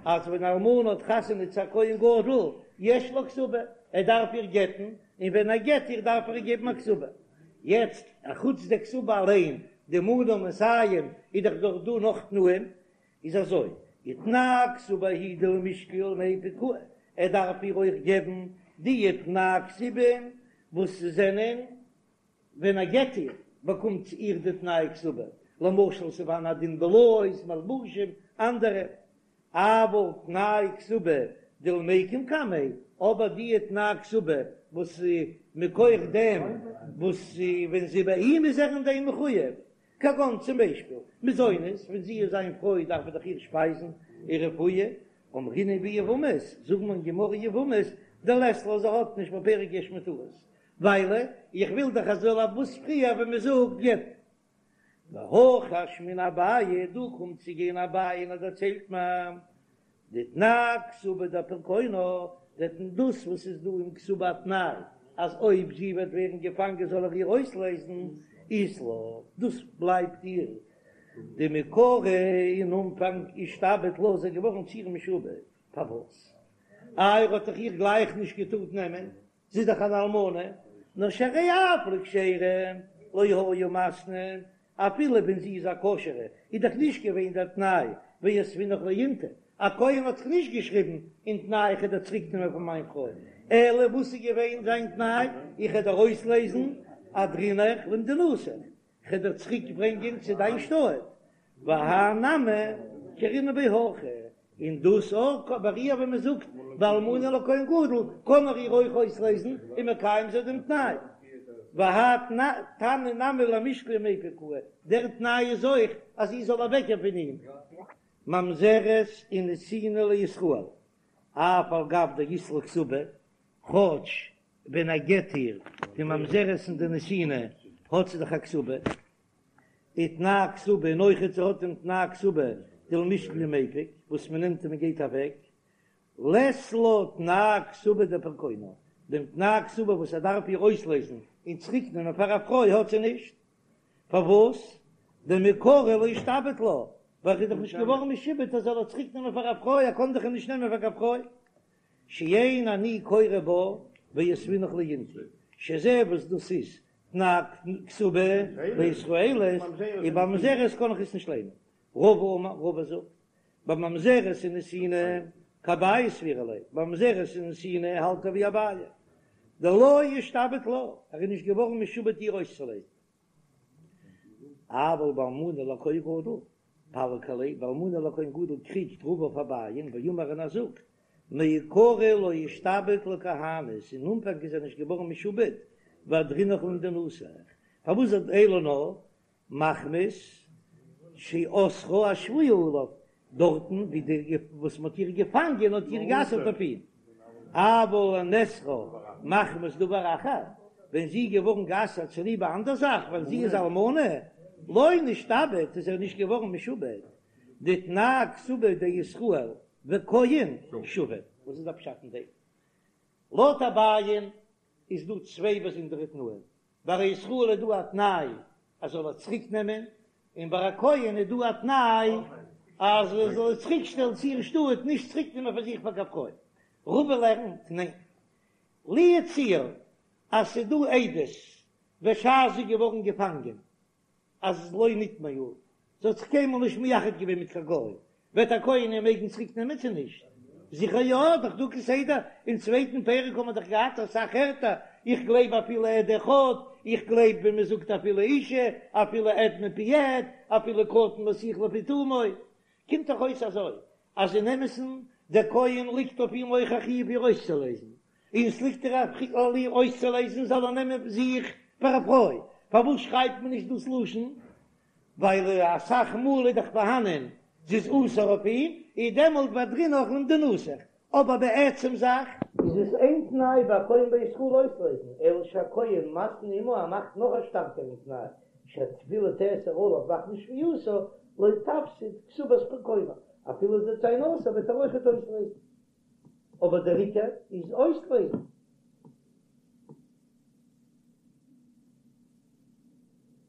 אז ווען אלמנה האט חתונה צו א כהן גדול, יש לה כתובה, ער דארף איר גט'ן, און ווען ער גט איר דארף ער איר געבן א כתובה. יעצט, אחוץ די כתובה אליין, די מנה מאתים, איז דאך דאך דא נאך תנאים, איז אזוי, ותנאי כתובה הוא דלמישקל ולמיפק קאי, ער דארף איר אויך געבן די תנאי כתובה וואס זענען ווען ער גט איר באקומט זי איר די תנאי כתובה, למשל ס'פארהאן א דין בלאות, מלבושים, אנדערע, אבל תנאי כתובה דלמיקם קמיה, אבער די תנאי כתובה וואס מכח דעם וואס ווען זי ביי אים איז ער אין דעם מחויב, כגון צום ביישפיל, מזונות, ווען זי איז זיין פרוי דארף ער דאך איר שפייזן און רפואה, אמרינן ביבמות, זאגט מען אין גמרא יבמות, דלית לה זי האט נישט בפרק יש מותרות, ווייל איך וויל דאך אז זאל וואס פריער ווען מען זאגט גט'ן. והכא אשמעינן אביי, דא קומט צו גיין אביי און ער דערציילט מיר דתנאי כתובה דפירקונה, דאס וואס איז דא אין כתובה א תנאי אז אויב זי וועט ווערן געפאנגען זאל ער איר אויסלייזן, אית לה, דאס בלייבט איר דמעיקרא אין אנפאנג אישתעבד לה איז ער געווארן צו איר משועבד, פארוואס? איי ער האט דאך איר גלייך נישט געטארט נעמען, זי איז דאך אן אלמנה, נאר שהרי אף לכשרה לא היה מתנה, אפילו ווען זי איז א כשר'ע איז דאך נישט געווען דער תנאי ואותבינך לאינתו, א כהן האט זיך נישט געשריבן אין תנאי איך וועל דיר צוריק נעמען פאר מיין פרוי, אלא וואס איז געווען זיין תנאי איך וועל דיר אויסלייזן אהדרינך למדינתך, איך וועל דיר צוריק ברענגען צו דיין שטאט, והאי נמי קרינא ביה הכי, און דאס אויך ביי איר ווען מען זאגט באלמנה לכהן גדול קען ער איר אויך אויסלייזן און מקיים זיין דעם תנאי, והאי תנא נמי למישקל ומיפק קאי, דער תנאי איז אויך אז זי זאל אוועקגיין פון אים. ממזרת ונתינה לישראל, אף על גב דאית לה כתובה, כאטש ווען ער גט איר די ממזרת און די נתינה האט זי דאך א כתובה, ותנאי כתובה און אויכעט זי האט דעם תנאי כתובה דלמישקל ומיפק וואס מען נעמט און מען גייט אוועק, לית לה תנאי כתובה דפירקונה, דעם תנאי כתובה וואס ער דארף איר אויסלייזן און צוריק נעמען פאר א פרוי האט זי נישט, פארוואס? דמעיקרא לא אישתעבד לה, ווייל ער איז דאך נישט געווארן משועבד ער זאל איר צוריק נעמען פאר א פרוי, ער קען דאך איר נישט נעמען פאר קיין פרוי. שאין אני קורא בה ואותבינך לאינתו, שזה וואס דאס איז תנאי כתובה לישראלית, און ביי ממזרת קען איך עס נישט ליינען. רבא אמר, רבא זאגט, בממזרת ונתינה כאביי סבירא ליה, בממזרת ונתינה האלט ער ווי אביי, דלא אישתעבד לה, ער איז נישט געווארן משועבד איר אויסצולייזן. אבל באלמנה לכהן גדול, פליג עליה, באלמנה לכהן גדול קריגט רבא אויף אביי'ן, ואמר און ער זאגט, מעיקרא לא אישתעבד לכהנת, אין אנפאנג איז ער נישט געווארן משועבד, ואהדרינך למדינתך, פארוואס זאגט אלא נאר מחמת שאסרה השבויה עליו, דארטן ווי די וואס מ'האט איר געפאנגען האט איר גע'אסר'ט אויף אים, אבל לנאסרה מחמת דבר אחר, ווען זי איז געווארן גע'אסר'ט צוליב א אנדער זאך, ווייל זי איז אלמנה, לא נשתעבד, איז ער נישט געווארן משועבד, דתנאי כתובה דישראל וכהן שווה. וואס איז דער פשט אין דעם? לויט אביי'ן איז דא צוויי באזונדערע תנאים, ביי א ישראל איז דא א תנאי אז זאל ער צוריק נעמען, און ביי א כהן איז דא א תנאי אז ער זאל איר צוריק שטעלן צו איר שטאט, נישט צוריק נעמען פאר זיך פאר קיין פרוי. רבא לערנט, ניין, לו יצוייר אז ס'איז דא עדות בשעת זי איז געווארן געפאנגען אז לא נטמאה, זי האט זיך קיינמאל נישט מייחד געווען מיט קיין גוי, וועט א כהן איר מעגן צוריק נעמען צו נישט? זיכער יא, דאך דא כסדר, אין צווייטן פרק האבן מיר דאך געהאט אסאך ערטער, איך גלייב אפילו עד אחד, איך גלייב ווען מען זאגט אפילו אישה, אפילו עד מפי עד, אפילו קטן מסיח לפי תומו, קומט דאך אויס אזוי, אז אין אמת'ן דער כהן ליגט אויף אים אויך א חיוב איר אויסצולייזן, און ס'ליגט איר א חיוב איר אויסצולייזן זאל ער נעמען זיך פאר א פרוי, פארוואס שרייבט מען נישט דאס לשון? ווייל אסאך מאל איז דאך פארהאנען זי איז אסור אויף אים, איז דעמאלט ואהדרינך למדינתך, אבער בעצם זאך איז עס איין תנאי ביי א כהן בישראל אויסלייזן, אלא שהכהן מתנה עמה ער מאכט נאך א שטארקערן תנאי, שאפילו תאסר עליו מחמת שבייתה לא תפסיד כתובת פרקונה, אפילו זי וועט זיין אסור וועט ער אויכעט אויסלייזן, אבער דער עיקר איז אויסלייזן.